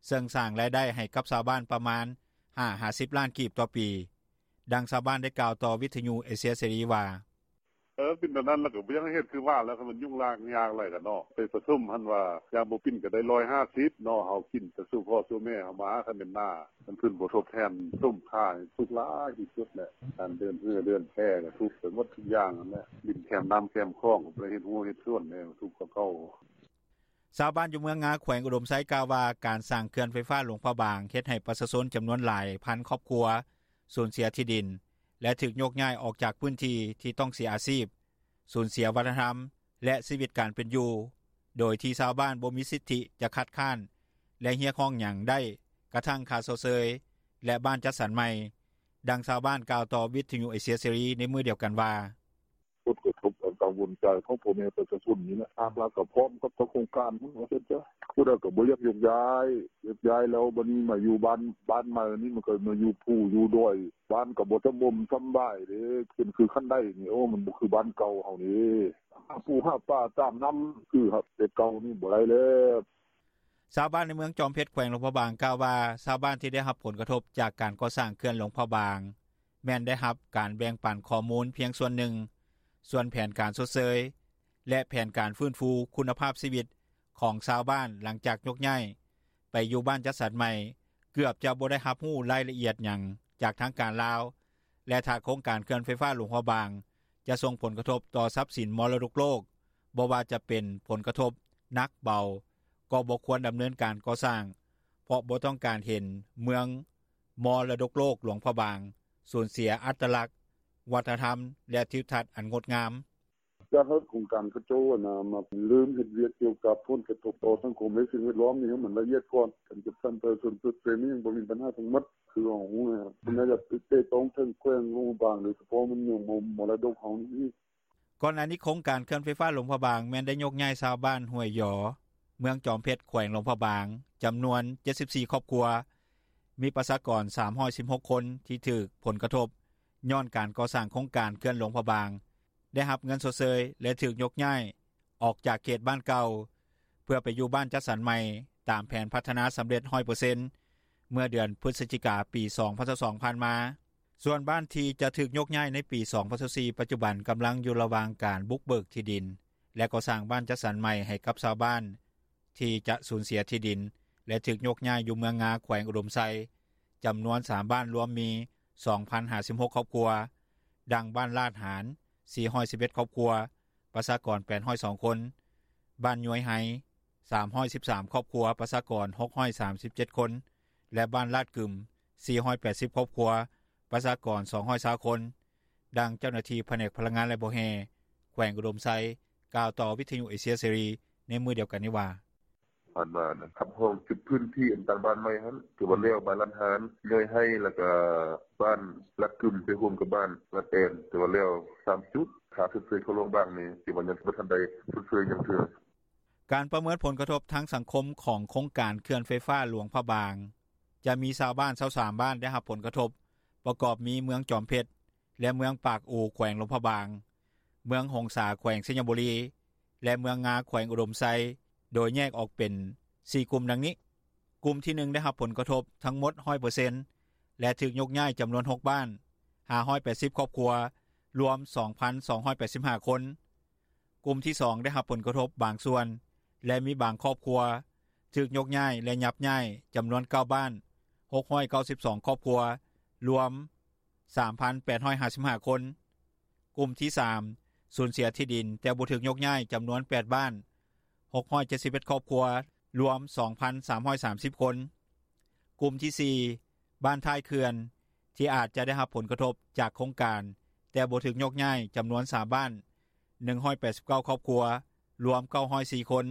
ເຊິ່ງສ້າງລາຍໄດ້ໃຫ້ກັບຊາວບ້ານປະມານ 5-10 ລ້ານກີບຕໍ່ປີ. ດັ່ງຊາວບ້ານໄດ້ກ່າວຕໍ່ວິທຍຸເອເຊຍເສລີວ່າ: “ເອີ ເປັນແນວນັ້ນແລ້ວກະບໍ່ຢາກໃຫ້ເຮັດ ຄືວ່າແລ້ວ ຄັນມັນຫຍຸ້ງຍາກຫຼາຍກະເນາະ ໄປປະຊຸມຫັ້ນວ່າ ຢ່າງບໍ່ປິ່ນກະໄດ້ 150 ເນາະ ເຮົາກິນແຕ່ສູ່ພໍ່ສູ່ແມ່ເຮົາມາ ຄັນແມ່ນໜ້າ ມັນຂຶ້ນບໍ່ທົດແທນ ສົມຄ່ານີ້ທຸກຫຼາຍທີ່ສຸດແຫຼະ ການເດີນເຮືອເດີນແພກະທຸກໄປໝົດທຸກຢ່າງຫັ້ນແຫຼະ ດິນແຄມນໍ້າແຄມຂອງ ກະບໍ່ໄດ້ເຮັດຮົ້ວເຮັດສວນແດ່ ທຸກກວ່າເກົ່າ.” ຊາວບ້ານຢູ່ເມືອງງາ ແຂວງອຸດົມໄຊ ກ່າວວ່າການສ້າງເຂື່ອນໄຟຟ້າຫຼວງພະບາງ ເຮັດໃຫ້ປະຊາຊົນຈຳນວນຫຼາຍພັນຄອບຄົວ ສູນເສຍທີ່ດິນ ແລະຖືກຍົກຍ້າຍອອກຈາກພື້ນທີ່ ທີ່ຕ້ອງເສຍອາຊີບ, ສູນເສຍວັດທະນະທຳ ແລະຊີວິດການເປັນຢູ່ ໂດຍທີ່ຊາວບ້ານບໍ່ມີສິດທິຈະຄັດຄ້ານ ແລະຮຽກຮ້ອງຫຍັງໄດ້ ກະທັ້ງຄ່າຊົດເຊີຍ ແລະບ້ານຈັດສັນໃໝ່. ດັ່ງຊາວບ້ານກ່າວຕໍ່ວິທຍຸເອເຊຍເສລີ ໃນມື້ດຽວກັນວ່າ: “ຜົນກະທົບ ອັນກັງວົນໃຈຂອງພໍ່ແມ່ປະຊາຊົນນີ້ແຫຼະ ທາງລັດກະພ້ອມກັບເຈົ້າໂຄງການພຸ້ນວ່າຊັ້ນສະ ຜູ້ໃດກະບໍ່ຢາກຍົກຍ້າຍ ຍົກຍ້າຍແລ້ວບາດນີ້ມາຢູ່ບ້ານໃໝ່ນີ້ ມັນກະມາຢູ່ພູຢູ່ດອຍ ບ້ານກະບໍ່ສະບົມສະບາຍເດ້ ເປັນຄືຄັນໄດນີ້ ໂອ ມັນບໍ່ຄືບ້ານເກົ່າເຮົານີ້ ຫາປູຫາປາຕາມນໍ້າ ຄືແຕ່ເກົ່ານີ້ບໍ່ໄດ້ແລ້ວ.” ຊາວບ້ານໃນເມືອງຈອມເພັດ ແຂວງຫຼວງພະບາງ ກ່າວວ່າຊາວບ້ານທີ່ໄດ້ຮັບຜົນກະທົບ ຈາກການກໍ່ສ້າງເຂື່ອນຫຼວງພະບາງ ແມ່ນໄດ້ຮັບການແບ່ງປັນຂໍ້ມູນພຽງສ່ວນໜຶ່ງ ສ່ວນແຜນການຊົດເຊີຍ ແລະແຜນການຟື້ນຟູຄຸນນະພາບຊີວິດ ຂອງຊາວບ້ານຫຼັງຈາກຍົກຍ້າຍ ໄປຢູ່ບ້ານຈັດສັນໃໝ່ ເກືອບຈະບໍ່ໄດ້ຮັບຮູ້ລາຍລະອຽດຫຍັງ ຈາກທາງການລາວ ແລະຖ້າໂຄງການເຂື່ອນໄຟຟ້າຫຼວງພະບາງ ຈະສົ່ງຜົນກະທົບຕໍ່ຊັບສິນມໍລະດົກໂລກ ບໍ່ວ່າຈະເປັນຜົນກະທົບໜັກເບົາ ກໍບໍ່ຄວນດຳເນີນການກໍ່ສ້າງ ເພາະບໍ່ຕ້ອງການເຫັນເມືອງມໍລະດົກໂລກຫຼວງພະບາງ ສູນເສຍອັດຕະລັກ ວັດທະນະທຳ ແລະທິວທັດອັນງົດງາມ. “ຢາກໃຫ້ໂຄງການເຂົາເຈົ້າຫັ້ນນ່າ ມາເລີ່ມເຮັດວຽກກ່ຽວກັບຜົນກະທົບຕໍ່ສັງຄົມ ແລະສິ່ງແວດລ້ອມນີ້ໃຫ້ມັນລະອຽດກ່ອນ ການຈັດສັນປະຊາຊົນຊົດເຊີຍນີ້ຍັງບໍ່ມີບັນຫາທັງໝົດ ຄືເຮົາຮູ້ຫັ້ນນ່າ ເພິ່ນໜ້າຈະເຕະຕ້ອງເຖິງແຂວງຫຼວງພະບາງ ໂດຍສະເພາະແມ່ນເມືອງມໍລະດົກເຮົານີ້.” ກ່ອນໜ້ານີ້ໂຄງການເຂື່ອນໄຟຟ້າຫຼວງພະບາງ ແມ່ນໄດ້ຍົກຍ້າຍຊາວບ້ານຫ້ວຍຢໍ ເມືອງຈອມເພັດ ແຂວງຫຼວງພະບາງ ຈຳນວນ 74 ຄອບຄົວ ມີປະຊາກອນ 316 ຄົນ ທີ່ຖືກຜົນກະທົບ ຍ້ອນການກໍ່ສ້າງໂຄງການເຂື່ອນຫຼວງພະບາງ ໄດ້ຮັບເງິນຊົດເຊີຍ ແລະຖືກຍົກຍ້າຍອອກຈາກເຂດບ້ານເກົ່າ ເພື່ອໄປຢູ່ບ້ານຈັດສັນໃໝ່ ຕາມແຜນພັດທະນາສຳເລັດ 100% ເມື່ອເດືອນພຶສຈິກາ ປີ 2022 ຜ່ານມາ. ສ່ວນບ້ານທີ່ຈະຖືກຍົກຍ້າຍໃນປີ 2024 ປັດຈຸບັນກຳລັງຢູ່ລະຫວ່າງການບຸກເບີກທີ່ດິນ ແລະກໍ່ສ້າງບ້ານຈັດສັນໃໝ່ໃຫ້ກັບຊາວບ້ານ ທີ່ຈະສູນເສຍທີ່ດິນ ແລະຖືກຍົກຍ້າຍຢູ່ເມືອງງາ ແຂວງອຸດົມໄຊ ຈຳນວນ 3 ບ້ານລວມມີ 2,056 ຄອບຄົວ ດັ່ງບ້ານລາດຫານ 411 ຄອບຄົວ ປະຊາກອນ 802 ຄົນ, ບ້ານຍວຍໄຮ 313 ຄອບຄົວ ປະຊາກອນ 637 ຄົນ ແລະບ້ານລາດກຶມ 480 ຄອບຄົວ ປະຊາກອນ 220 ຄົນ. ດັ່ງເຈົ້າໜ້າທີ່ພະແນກພະລັງງານ ແລະບໍ່ແຮ່ ແຂວງອຸດົມໄຊ ກ່າວຕໍ່ວິທຍຸເອເຊຍເສລີ ໃນມື້ດຽວກັນນີ້ວ່າ: “ອັນວ່ານະ ຮັບຮອງຈຸດພື້ນທີ່ ອັນຕັ້ງບ້ານໃໝ່ຫັ້ນ ຖືວ່າແລ້ວ ບ້ານລາດຫານ ຍວຍໄຮ ແລ້ວກະບ້ານລາດກຶມ ໄປຮ່ວມກັບບ້ານລາດແອນ ຖືວ່າແລ້ວ 3 ຈຸດ ຄ່າຊົດເຊີຍເຂົາຫຼວງບາງນີ້ ຖືວ່າຍັງບໍ່ທັນໄດ້ຊົດເຊີຍຫຍັງເທື່ອ.” ການປະເມີນຜົນກະທົບທາງສັງຄົມ ຂອງໂຄງການເຂື່ອນໄຟຟ້າຫຼວງພະບາງ ຈະມີຊາວບ້ານ 23 ບ້ານໄດ້ຮັບຜົນກະທົບ ປະກອບມີເມືອງຈອມເພັດ ແລະເມືອງປາກອູ ແຂວງຫຼວງພະບາງ, ເມືອງຫົງສາ ແຂວງໄຊຍະບູລີ ແລະເມືອງງາ ແຂວງອຸດົມໄຊ ໂດຍແຍກອອກເປັນ 4 ກຸ່ມດັ່ງນີ້: ກຸ່ມທີ 1 ໄດ້ຮັບຜົນກະທົບທັງໝົດ 100% ແລະຖືກຍົກຍ້າຍຈຳນວນ 6 ບ້ານ, 580 ຄອບຄົວ, ລວມ 2,285 ຄົນ. ກຸ່ມທີ 2 ໄດ້ຮັບຜົນກະທົບບາງສ່ວນ ແລະມີບາງຄອບຄົວ ຖືກຍົກຍ້າຍ ແລະຫຍັບຍ້າຍ ຈຳນວນ 9 ບ້ານ, 692 ຄອບຄົວ, ລວມ ສາມພັນແປດຮ້ອຍຫ້າສິບຫ້າຄົນ. ກຸ່ມທີສາມ ສູນເສຍທີ່ດິນແຕ່ບໍ່ຖືກຍົກຍ້າຍ ຈຳນວນແປດບ້ານ ຫົກຮ້ອຍເຈັດສິບເອັດຄອບຄົວ ລວມ ສອງພັນສາມຮ້ອຍສາມສິບຄົນ. ກຸ່ມທີສີ່ ບ້ານທ້າຍເຂື່ອນ ທີ່ອາດຈະໄດ້ຮັບຜົນກະທົບຈາກໂຄງການ ແຕ່ບໍ່ຖືກຍົກຍ້າຍ ຈຳນວນສາມບ້ານ ໜຶ່ງຮ້ອຍແປດສິບເກົ້າຄອບຄົວ ລວມ ເກົ້າຮ້ອຍສີ່ຄົນ.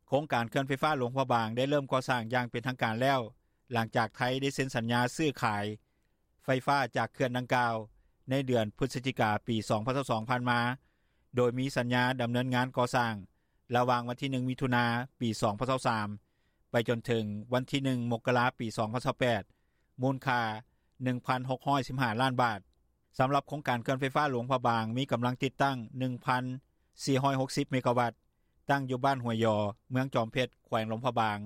ໂຄງການເຂື່ອນໄຟຟ້າຫຼວງພະບາງ ໄດ້ເລີ່ມກໍ່ສ້າງຢ່າງເປັນທາງການແລ້ວ ຫຼັງຈາກໄທໄດ້ເຊັນສັນຍາຊື້ຂາຍໄຟຟ້າຈາກເຂື່ອນດັ່ງກ່າວ ໃນເດືອນພຶສຈິກາ ປີສອງພັນຊາວສອງ ຜ່ານມາ, ໂດຍມີສັນຍາດຳເນີນງານກໍ່ສ້າງ ລະຫວ່າງວັນທີໜຶ່ງ ມິຖຸນາ ປີສອງພັນຊາວສາມ ໄປຈົນເຖິງວັນທີໜຶ່ງ ມົກກະລາ ປີສອງພັນຊາວແປດ ມູນຄ່າ ໜຶ່ງພັນຫົກຮ້ອຍສິບຫ້າລ້ານບາດ. ສຳລັບໂຄງການເຂື່ອນໄຟຟ້າຫຼວງພະບາງ ມີກຳລັງຕິດຕັ້ງ ໜຶ່ງພັນສີ່ຮ້ອຍຫົກສິບເມກາວັດ, ຕັ້ງຢູ່ບ້ານຫ້ວຍຢໍ ເມືອງຈອມເພັດ ແຂວງຫຼວງພະບາງ,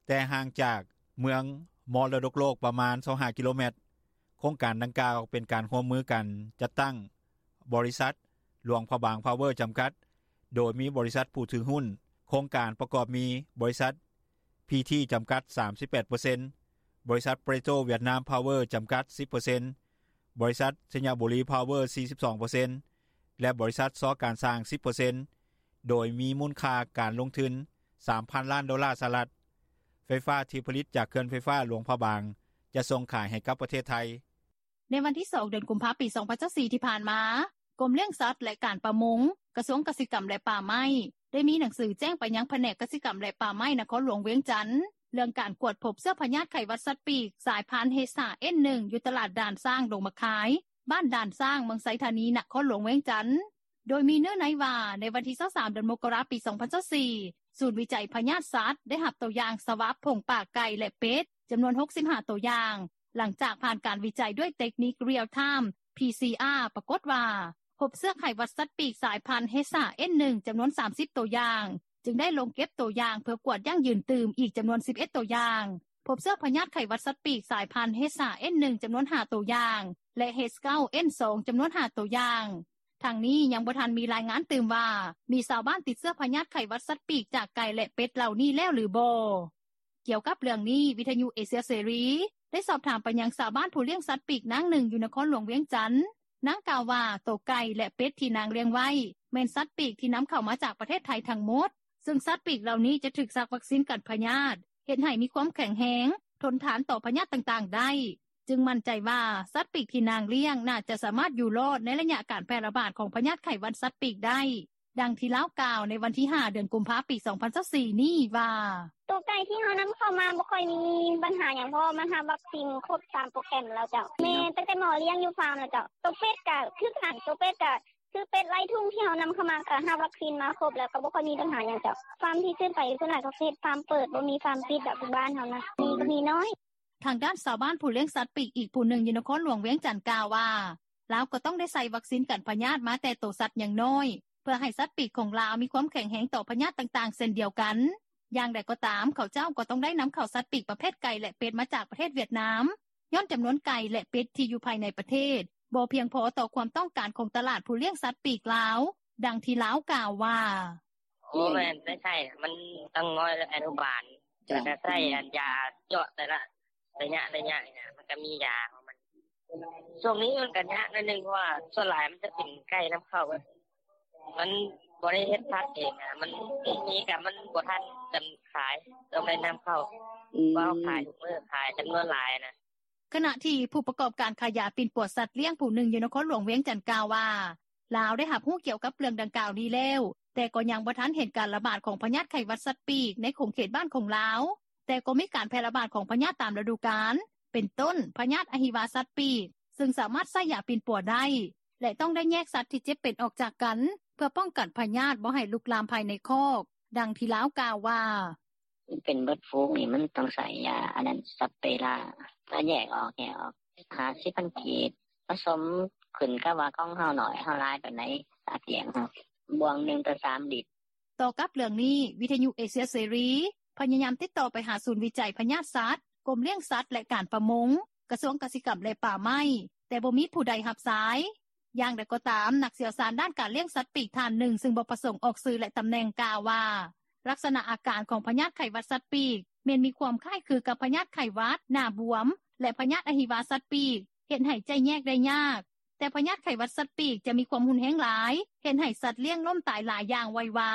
ແຕ່ຫ່າງຈາກເມືອງມໍລະດົກໂລກປະມານ ຊາວຫ້າກິໂລແມັດ. ໂຄງການດັ່ງກ່າວເປັນການຮ່ວມມືກັນຈັດຕັ້ງ ບໍລິສັດ ຫຼວງພະບາງພາວເວີ ຈຳກັດ, ໂດຍມີບໍລິສັດຜູ້ຖືຫຸ້ນໂຄງການປະກອບມີ ບໍລິສັດ ພີທີ ຈຳກັດ ສາມສິບແປດເປີເຊັນ, ບໍລິສັດ ເປໂຕຣ ຫວຽດນາມ ພາວເວີ ຈຳກັດ ສິບເປີເຊັນ, ບໍລິສັດ ໄຊຍະບູລີ ພາວເວີ ສີ່ສິບສອງເປີເຊັນ ແລະ ບໍລິສັດ ຊໍການຊ່າງ ສິບເປີເຊັນ, ໂດຍມີມູນຄ່າການລົງທຶນ ສາມພັນລ້ານໂດລາສະຫະລັດ. ໄຟຟ້າທີ່ຜະລິດຈາກເຂື່ອນໄຟຟ້າຫຼວງພະບາງ ຈະສົ່ງຂາຍໃຫ້ກັບປະເທດໄທ. ໃນວັນທີສອງ ເດືອນກຸມພາ ປີສອງພັນຊາວສີ່ ທີ່ຜ່ານມາ, ກົມລ້ຽງສັດ ແລະ ການປະມົງ, ກະຊວງກະສິກຳ ແລະ ປ່າໄມ້ ໄດ້ມີໜັງສືແຈ້ງໄປຍັງພະແນກກະສິກຳ ແລະ ປ່າໄມ້ ນະຄອນຫຼວງວຽງຈັນ ເລື່ອງການກວດພົບເຊື້ອພະຍາດໄຂ້ຫວັດສັດປີກ ສາຍພັນ ເອຊ ເອັນ ໜຶ່ງ ຢູ່ຕະຫຼາດດ່ານຊ້າງ ດົງໝາກຄາຍ, ບ້ານດ່ານຊ້າງ ເມືອງໄຊທານີ ນະຄອນຫຼວງວຽງຈັນ. ໂດຍມີເນື້ອໃນວ່າ ໃນວັນທີຊາວສາມ ເດືອນມົກກະລາ ປີສອງພັນຊາວສີ່ ສູນວິໄຈພະຍາດສັດ ໄດ້ຮັບຕົວຢ່າງສະຫວັບ ຜົງປາກໄກ່ ແລະ ເປັດ ຈຳນວນ ຫົກສິບຫ້າ ຕົວຢ່າງ, ຫຼັງຈາກຜ່ານການວິໄຈດ້ວຍເຕັກນິກ Real Time ພີຊີອາ ປາກົດວ່າ ພົບເຊື້ອໄຂ້ຫວັດສັດປີກ ສາຍພັນ ເອຊ ເອັນ ໜຶ່ງ ຈຳນວນ ສາມສິບ ຕົວຢ່າງ, ຈຶ່ງໄດ້ລົງເກັບຕົວຢ່າງ ເພື່ອກວດຢັ້ງຢືນຕື່ມອີກ ຈຳນວນ ສິບເອັດ ຕົວຢ່າງ, ພົບເຊື້ອພະຍາດໄຂ້ຫວັດສັດປີກ ສາຍພັນ ເອຊ ເອັນ ໜຶ່ງ ຈຳນວນ ຫ້າ ຕົວຢ່າງ ແລະ ເອຊ ເກົ້າ ເອັນ ສອງ ຈຳນວນ ຫ້າ ຕົວຢ່າງ. ທັງນີ້ຍັງບໍ່ທັນມີລາຍງານຕື່ມວ່າ ມີຊາວບ້ານຕິດເຊື້ອພະຍາດໄຂ້ຫວັດສັດປີກ ຈາກໄກ່ ແລະ ເປັດເຫຼົ່ານີ້ແລ້ວ ຫຼື ບໍ່. ກ່ຽວກັບເລື່ອງນີ້, ວິທະຍຸເອເຊຍເສລີ ໄດ້ສອບຖາມໄປຍັງຊາວບ້ານຜູ້ລ້ຽງສັດປີກນາງໜຶ່ງ ຢູ່ນະຄອນຫຼວງວຽງຈັນ. ນາງກ່າວວ່າ ໂຕໄກ່ ແລະ ເປັດທີ່ນາງລ້ຽງໄວ້ ແມ່ນສັດປີກທີ່ນຳເຂົ້າມາຈາກປະເທດໄທທັງໝົດ, ເຊິ່ງສັດປີກເຫຼົ່ານີ້ຈະຖືກສັກວັກຊີນກັນພະຍາດ ເຮັດໃຫ້ມີຄວາມແຂງແຮງ, ທົນທານຕໍ່ພະຍາດຕ່າງໆໄດ້, ຈຶ່ງໝັ້ນໃຈວ່າ ສັດປີກທີ່ນາງລ້ຽງ ໜ້າຈະສາມາດຢູ່ລອດໃນໄລຍະການແຜ່ລະບາດຂອງພະຍາດໄຂ້ຫວັດສັດປີກໄດ້. ດັ່ງທີ່ລາວກ່າວໃນວັນທີຫ້າ ເດືອນກຸມພາ ປີສອງພັນຊາວສີ່ນີ້ວ່າ: ໂຕໄກ່ທີ່ເຮົານຳເຂົ້າມາບໍ່ຄ່ອຍມີບັນຫາຫຍັງ ເພາະວ່າມັນຮັບວັກຊີນຄົບຕາມໂປຣແກຣມແລ້ວເຈົ້າ. ແມ່ນ ຕັ້ງແຕ່ໝໍລ້ຽງຢູ່ຟາມແລ້ວເຈົ້າ. ໂຕເປັດກະຄືກັນ, ໂຕເປັດກະຄືເປັດໄລ່ທຸງທີ່ເຮົານຳເຂົ້າມາ ກະຮັບວັກຊີນມາຄົບແລ້ວ ກະບໍ່ຄ່ອຍມີບັນຫາຫຍັງເຈົ້າ. ຟາມທີ່ຊື້ໄປສ່ວນຫຼາຍກະເຮັດຟາມເປີດ ບໍ່ມີຟາມປິດດອກ ຢູ່ບ້ານເຮົານະ ມີກະມີນ້ອຍ. ທາງດ້ານຊາວບ້ານຜູ້ລ້ຽງສັດປີກອີກຜູ້ໜຶ່ງຢູ່ນະຄອນຫຼວງວຽງຈັນກ່າວວ່າ ລາວກໍຕ້ອງໄດ້ໃສ່ວັກຊີນກັນພະຍາດມາແຕ່ໂຕສັດຍັງນ້ອຍ ເພື່ອໃຫ້ສັດປີກຂອງລາວມີຄວາມແຂງແຮງຕໍ່ພະຍາດຕ່າງໆເຊັ່ນດຽວກັນ. ຢ່າງໃດກໍຕາມ, ເຂົາເຈົ້າກໍຕ້ອງໄດ້ນຳເຂົ້າສັດປີກປະເພດໄກ່ ແລະ ເປັດມາຈາກປະເທດຫວຽດນາມ, ຍ້ອນຈຳນວນໄກ່ ແລະ ເປັດທີ່ຢູ່ພາຍໃນປະເທດ ບໍ່ພຽງພໍຕໍ່ຄວາມຕ້ອງການຂອງຕະຫຼາດຜູ້ລ້ຽງສັດປີກລາວ. ດັ່ງທີ່ລາວກ່າວວ່າ: ບໍ່ແມ່ນໄດ້ໃຊ້ ມັນຕ້ອງນ້ອຍແລະອະນຸບານ ແລ້ວກະໃຊ້ອັນຢາເຈາະແຕ່ລະໄລຍະໄລຍະນີ້ນະ ມັນກະມີຢາຂອງມັນ. ຊ່ວງນີ້ມັນກະຍາກໜ້ອຍໜຶ່ງ ເພາະວ່າສ່ວນຫຼາຍມັນຈະເປັນໄກ່ນຳເຂົ້າ ມັນບໍ່ໄດ້ເຮັດພັນເອງນະ ມັນມີກະມັນບໍ່ທັນຈຳຂາຍ ຕ້ອງໄດ້ນຳເຂົ້າ ເພາະເຮົາຂາຍທຸກມື້ ຂາຍຈຳນວນຫຼາຍນະ. ຂະນະທີ່ຜູ້ປະກອບການຂາຍຢາປິ່ນປົວສັດລ້ຽງຜູ້ໜຶ່ງຢູ່ນະຄອນຫຼວງວຽງຈັນກ່າວວ່າ ລາວໄດ້ຮັບຮູ້ກ່ຽວກັບເລື່ອງດັ່ງກ່າວນີ້ແລ້ວ ແຕ່ກໍຍັງບໍ່ທັນເຫັນການລະບາດຂອງພະຍາດໄຂ້ຫວັດສັດປີກໃນຂົງເຂດບ້ານຂອງລາວ, ແຕ່ກໍມີການແຜ່ລະບາດຂອງພະຍາດຕາມລະດູການ ເປັນຕົ້ນ ພະຍາດອະຫິວາສັດປີກ ເຊິ່ງສາມາດໃຊ້ຢາປິ່ນປົວໄດ້ ແລະ ຕ້ອງໄດ້ແຍກສັດທີ່ເຈັບເປັນອອກຈາກກັນ ເພື່ອປ້ອງກັນພະຍາດບໍ່ໃຫ້ລຸກລາມພາຍໃນຄອກ. ດັ່ງທີ່ລາວກ່າວວ່າ: ເປັນເບິດຝູງນີ້ ມັນຕ້ອງໃຊ້ຢາອັນນັ້ນ ສັບເປຣາ ຖ້າແຍກອອກ ແຍກອອກ ຫ້າສິບພັນກີບ ປະສົມຂຶ້ນກັບວ່າຂອງເຮົາໜ້ອຍ ເຮົາຫຼາຍປານໃດ ສາກລ້ຽງເຮົາ ບ່ວງໜຶ່ງຕໍ່ສາມລິດ. ຕໍ່ກັບເລື່ອງນີ້, ວິທະຍຸເອເຊຍເສລີ ພະຍາຍາມຕິດຕໍ່ໄປຫາສູນວິໄຈພະຍາດສັດ, ກົມລ້ຽງສັດ ແລະ ການປະມົງ, ກະຊວງກະສິກຳ ແລະ ປ່າໄມ້, ແຕ່ບໍ່ມີຜູ້ໃດຮັບສາຍ. ຢ່າງໃດກໍຕາມ, ນັກຊ່ຽວຊານດ້ານການລ້ຽງສັດປີກທ່ານໜຶ່ງ ເຊິ່ງບໍ່ປະສົງອອກຊື່ ແລະ ຕຳແໜ່ງ ກ່າວວ່າ ລັກສະນະອາການຂອງພະຍາດໄຂ້ຫວັດສັດປີກ ແມ່ນມີຄວາມຄ້າຍຄືກັບພະຍາດໄຂ້ຫວັດ, ໜ້າບວມ ແລະ ພະຍາດອະຫິວາສັດປີກ ເຮັດໃຫ້ແຍກໄດ້ຍາກ, ແຕ່ພະຍາດໄຂ້ຫວັດສັດປີກ ຈະມີຄວາມຮຸນແຮງຫຼາຍ ເຮັດໃຫ້ສັດລ້ຽງລົ້ມຕາຍຫຼາຍຢ່າງໄວວາ,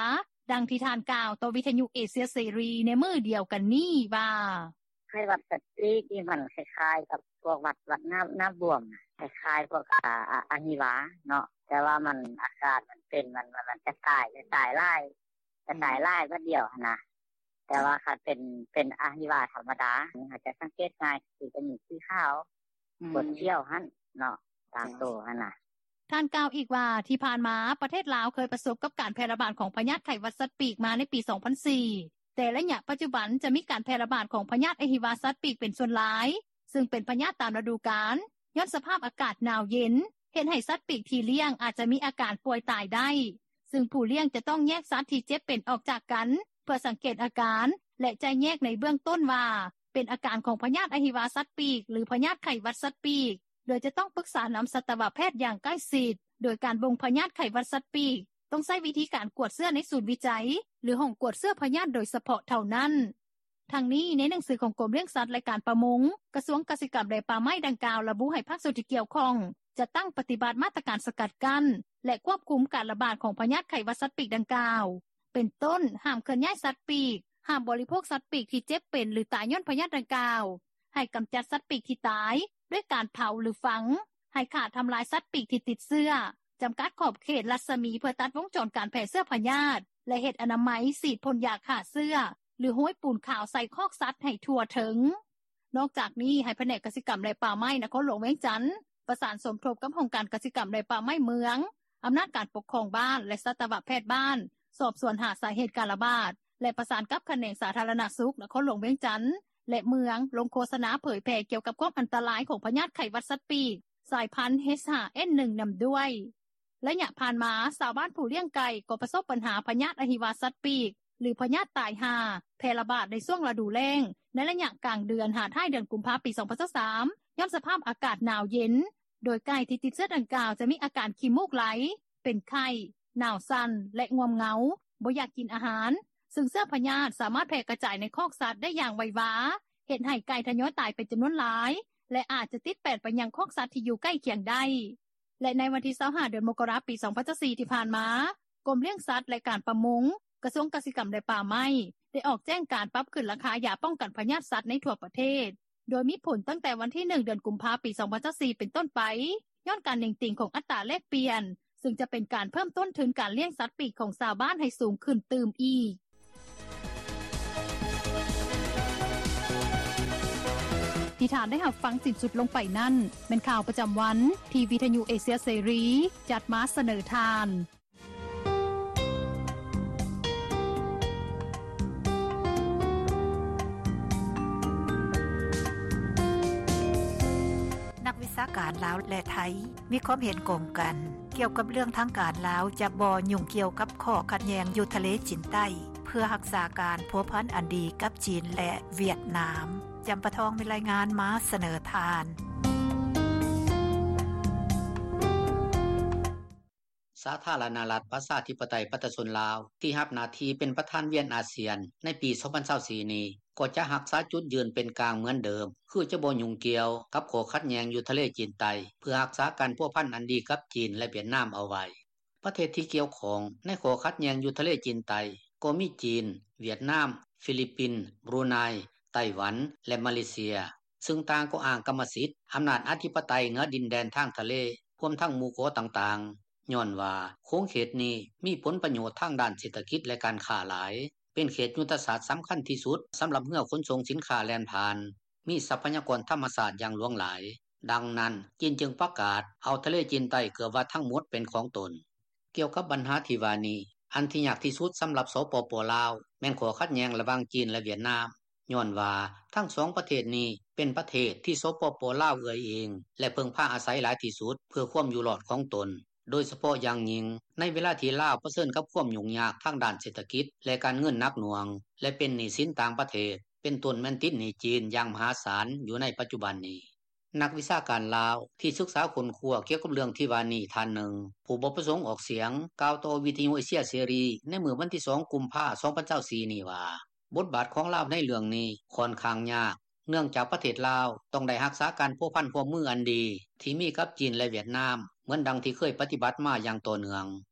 ດັ່ງທີ່ທ່ານກ່າວຕໍ່ວິທຍຸເອເຊຍເສລີໃນມື້ດຽວກັນນີ້ວ່າ: “ໄຂ້ຫວັດສັດປີກນີ້ມັນຄ້າຍໆກັບພວກຫວັດ ຫວັດໜ້າບວມ ຄ້າຍໆພວກອະຫິວາເນາະ ແຕ່ວ່າມັນອາການມັນເປັນ ມັນກະຈາຍຫຼາຍ ກະຈາຍຫຼາຍບາດດຽວຫັ້ນນ່າ ແຕ່ວ່າຄັນເປັນອະຫິວາທຳມະດາ ເຮົາຈະສັງເກດງ່າຍ ຄືຈະມີສີຂາວ ກວດຂຽວຫັ້ນເນາະ ຕາມໂຕຫັ້ນນ່າ.” ທ່ານກ່າວອີກວ່າ ທີ່ຜ່ານມາ ປະເທດລາວເຄີຍປະສົບກັບການແຜ່ລະບາດຂອງພະຍາດໄຂ້ຫວັດສັດປີກມາໃນປີ ສອງພັນສີ່ ແຕ່ໄລຍະປັດຈຸບັນ ຈະມີການແຜ່ລະບາດຂອງພະຍາດອະຫິວາສັດປີກເປັນສ່ວນຫຼາຍ ຊຶ່ງເປັນພະຍາດຕາມລະດູການ ຍ້ອນສະພາບອາກາດໜາວເຢັນ ເຮັດໃຫ້ສັດປີກທີ່ລ້ຽງອາດມີອາການປ່ວຍຕາຍໄດ້ ຊຶ່ງຜູ້ລ້ຽງຈະຕ້ອງແຍກສັດທີ່ເຈັບເປັນອອກຈາກກັນ ເພື່ອສັງເກດອາການ ແລະ ຈະແຍກໃນເບື້ອງຕົ້ນວ່າ ເປັນອາການຂອງພະຍາດອະຫິວາສັດປີກ ຫຼື ພະຍາດໄຂ້ຫວັດສັດປີກ ໂດຍຈະຕ້ອງປຶກສານຳສັດຕະວະແພດຢ່າງໃກ້ຊິດ ໂດຍການບົ່ງພະຍາດໄຂ້ຫວັດສັດປີກ ຕ້ອງໃຊ້ວິທີການກວດເຊື້ອໃນສູນວິໄຈ ຫຼື ຫ້ອງກວດເຊື້ອພະຍາດໂດຍສະເພາະເທົ່ານັ້ນ. ທັງນີ້ ໃນໜັງສືຂອງກົມລ້ຽງສັດ ແລະ ການປະມົງ ກະຊວງກະສິກຳ ແລະ ປ່າໄມ້ດັ່ງກ່າວ ລະບຸໃຫ້ພາກສ່ວນທີ່ກ່ຽວຂ້ອງ ຈັດຕັ້ງປະຕິບັດມາດຕະການສະກັດກັ້ນ ແລະ ຄວບຄຸມການລະບາດຂອງພະຍາດໄຂ້ຫວັດສັດປີກດັ່ງກ່າວ ເປັນຕົ້ນ ຫ້າມເຄື່ອນຍ້າຍສັດປີກ, ຫ້າມບໍລິໂພກສັດປີກທີ່ເຈັບເປັນ ຫຼື ຕາຍຍ້ອນພະຍາດດັ່ງກ່າວ, ໃຫ້ກຳຈັດສັດປີກທີ່ຕາຍ ດ້ວຍການເຜົາ ຫຼື ຝັງ, ໃຫ້ຂ້າທຳລາຍສັດປີກທີ່ຕິດເຊື້ອ, ຈຳກັດຂອບເຂດລັດສະໝີເພື່ອຕັດວົງຈອນການແຜ່ເຊື້ອພະຍາດ ແລະ ເຮັດອະນາໄມ, ສີດພົ່ນຢາຂ້າເຊື້ອ ຫຼື ໂຮຍປູນຂາວໃສ່ຄອກສັດໃຫ້ທົ່ວເຖິງ. ນອກຈາກນີ້ ໃຫ້ພະແນກກະສິກຳ ແລະ ປ່າໄມ້ນະຄອນຫຼວງວຽງຈັນ ປະສານສົມທົບກັບຫ້ອງການກະສິກຳ ແລະ ປ່າໄມ້ເມືອງ, ອຳນາດການປົກຄອງບ້ານ ແລະ ສັດຕະວະແພດບ້ານ ສອບສວນຫາສາເຫດການລະບາດ ແລະ ປະສານກັບຂະແໜງສາທາລະນະສຸກນະຄອນຫຼວງວຽງຈັນ ແລະ ເມືອງ ລົງໂຄສະນາເຜີຍແຜ່ກ່ຽວກັບຄວາມອັນຕະລາຍຂອງພະຍາດໄຂ້ຫວັດສັດປີກ ສາຍພັນ ເອຊຫ້າເອັນໜຶ່ງ ນຳດ້ວຍ. ໄລຍະຜ່ານມາ ຊາວບ້ານຜູ້ລ້ຽງໄກ່ກໍປະສົບບັນຫາພະຍາດອະຫິວາສັດປີກ ຫຼື ພະຍາດຕາຍຫ່າ ແຜ່ລະບາດໃນຊ່ວງລະດູແລ້ງ ໃນໄລຍະກາງເດືອນຫາທ້າຍເດືອນກຸມພາ ປີ ສອງພັນຊາວສາມ ຍ້ອນສະພາບອາກາດໜາວເຢັນ ໂດຍໄກ່ທີ່ຕິດເຊື້ອດັ່ງກ່າວ ຈະມີອາການຂີ້ມູກໄຫຼ, ເປັນໄຂ້, ໜາວສັ່ນ ແລະ ງ່ວມເຫງົາ, ບໍ່ຢາກກິນອາຫານ ຊຶ່ງເຊື້ອພະຍາດສາມາດແຜ່ກະຈາຍໃນຄອກສັດໄດ້ຢ່າງໄວວາ, ເຮັດໃຫ້ໄກ່ທະຍອຍຕາຍເປັນຈຳນວນຫຼາຍ ແລະ ອາດຈະຕິດແປດໄປຍັງຄອກສັດທີ່ຢູ່ໃກ້ຄຽງໄດ້. ແລະ ໃນວັນທີ ຊາວຫ້າ ເດືອນມົກກະລາ ປີ ສອງພັນຊາວສີ່ ທີ່ຜ່ານມາ, ກົມລ້ຽງສັດ ແລະ ການປະມົງ, ກະຊວງກະສິກຳ ແລະ ປ່າໄມ້ ໄດ້ອອກແຈ້ງການປັບຂຶ້ນລາຄາຢາປ້ອງກັນພະຍາດສັດໃນທົ່ວປະເທດ ໂດຍມີຜົນຕັ້ງແຕ່ວັນທີ ໜຶ່ງ ເດືອນກຸມພາ ປີ ສອງພັນຊາວສີ່ ເປັນຕົ້ນໄປ ຍ້ອນການເໜັງຕີງຂອງອັດຕາແລກປ່ຽນ ຊຶ່ງຈະເປັນການເພີ່ມຕົ້ນທຶນການລ້ຽງສັດປີກຂອງຊາວບ້ານໃຫ້ສູງຂຶ້ນຕື່ມອີກ. ທີ່ທ່ານໄດ້ຮັບຟັງສິ້ນສຸດລົງໄປນັ້ນ ແມ່ນຂ່າວປະຈຳວັນ ທີ່ວິທະຍຸເອເຊຍເສລີ ຈັດມາສະເໜີທ່ານ. ນັກວິຊາການລາວ ແລະ ໄທ ມີຄວາມເຫັນກົງກັນ ກ່ຽວກັບເລື່ອງທາງການລາວຈະບໍ່ຫຍຸ້ງກ່ຽວກັບຂໍ້ຂັດແຍ່ງຢູ່ທະເລຈີນໃຕ້ ເພື່ອຮັກສາການພົວພັນອັນດີກັບຈີນ ແລະ ຫວຽດນາມ. ຈຳປາທອງມີລາຍງານມາສະເໜີທ່ານ. ສາທາລະນະລັດ ປະຊາທິປະໄຕ ປະຊາຊົນລາວ ທີ່ຮັບໜ້າທີ່ເປັນປະທານວຽນອາຊຽນໃນປີ ສອງພັນຊາວສີ່ ນີ້ ກໍຈະຮັກສາຈຸດຢືນເປັນກາງເໝືອນເດີມ ຄືຈະບໍ່ຫຍຸ້ງກ່ຽວກັບຂໍ້ຂັດແຍ່ງຢູ່ທະເລຈີນໃຕ້ ເພື່ອຮັກສາການພົວພັນອັນດີກັບຈີນ ແລະ ຫວຽດນາມເອົາໄວ້. ປະເທດທີ່ກ່ຽວຂ້ອງໃນຂໍ້ຂັດແຍ່ງຢູ່ທະເລຈີນໃຕ້ ກໍມີຈີນ, ຫວຽດນາມ, ຟີລິບປິນ, ບຣູໄນ, ໄຕ້ຫວັນ ແລະ ມາເລເຊຍ ຊຶ່ງຕ່າງກໍອ້າງກຳມະສິດ, ອຳນາດອະທິປະໄຕເໜືອດິນແດນທາງທະເລ ຮວມທັງໝູ່ເກາະຕ່າງໆ ຍ້ອນວ່າຂົງເຂດນີ້ມີຜົນປະໂຫຍດທາງດ້ານເສດຖະກິດ ແລະ ການຄ້າຫຼາຍ, ເປັນເຂດຍຸດທະສາດສຳຄັນທີ່ສຸດສຳລັບເຮືອຂົນສົ່ງສິນຄ້າແລ່ນຜ່ານ, ມີຊັບພະຍາກອນທຳມະຊາດຢ່າງຫຼວງຫຼາຍ. ດັ່ງນັ້ນ ຈີນຈຶ່ງປະກາດເອົາທະເລຈີນໃຕ້ເກືອບວ່າທັງໝົດເປັນຂອງຕົນ. ກ່ຽວກັບບັນຫາທີ່ວ່ານີ້, ອັນທີ່ຍາກທີ່ສຸດສຳລັບ ສປປ ລາວ ແມ່ນຂໍ້ຂັດແຍ່ງລະຫວ່າງຈີນ ແລະ ຫວຽດນາມ, ຍ້ອນວ່າທັງສອງປະເທດນີ້ເປັນປະເທດທີ່ ສປປ ລາວ ເອື້ອຍອີງ ແລະ ເພິ່ງພາອາໄສຫຼາຍທີ່ສຸດເພື່ອຄວາມຢູ່ລອດຂອງຕົນ, ໂດຍສະເພາະຢ່າງຍິ່ງໃນເວລາທີ່ລາວປະເຊີນກັບຄວາມຫຍຸ້ງຍາກທາງດ້ານເສດຖະກິດ ແລະ ການເງິນໜັກໜ່ວງ ແລະ ເປັນໜີ້ສິນຕ່າງປະເທດ, ເປັນຕົ້ນແມ່ນຕິດໜີ້ຈີນຢ່າງມະຫາສານຢູ່ໃນປັດຈຸບັນນີ້. ນັກວິຊາການລາວທີ່ສຶກສາຄົ້ນຄວ້າກ່ຽວກັບເລື່ອງທີ່ວ່ານີ້ທ່ານໜຶ່ງ ຜູ້ບໍ່ປະສົງອອກສຽງ ກ່າວຕໍ່ວິທະຍຸເອເຊຍເສລີໃນມື້ວັນທີ ສອງ ກຸມພາ ສອງພັນຊາວສີ່ ນີ້ວ່າ ບົດບາດຂອງລາວໃນເລື່ອງນີ້ຂ້ອນຂ້າງຍາກ, ເນື່ອງຈາກປະເທດລາວ ຕ້ອງໄດ້ຮັກສາການພົວພັນຮ່ວມມືອັນດີ ທີ່ມີກັບຈີນ ແລະຫວຽດນາມ ເໝືອນດັ່ງທີ່ເຄີຍປະຕິບັດມາຢ່າງຕໍ່ເນື່ອງ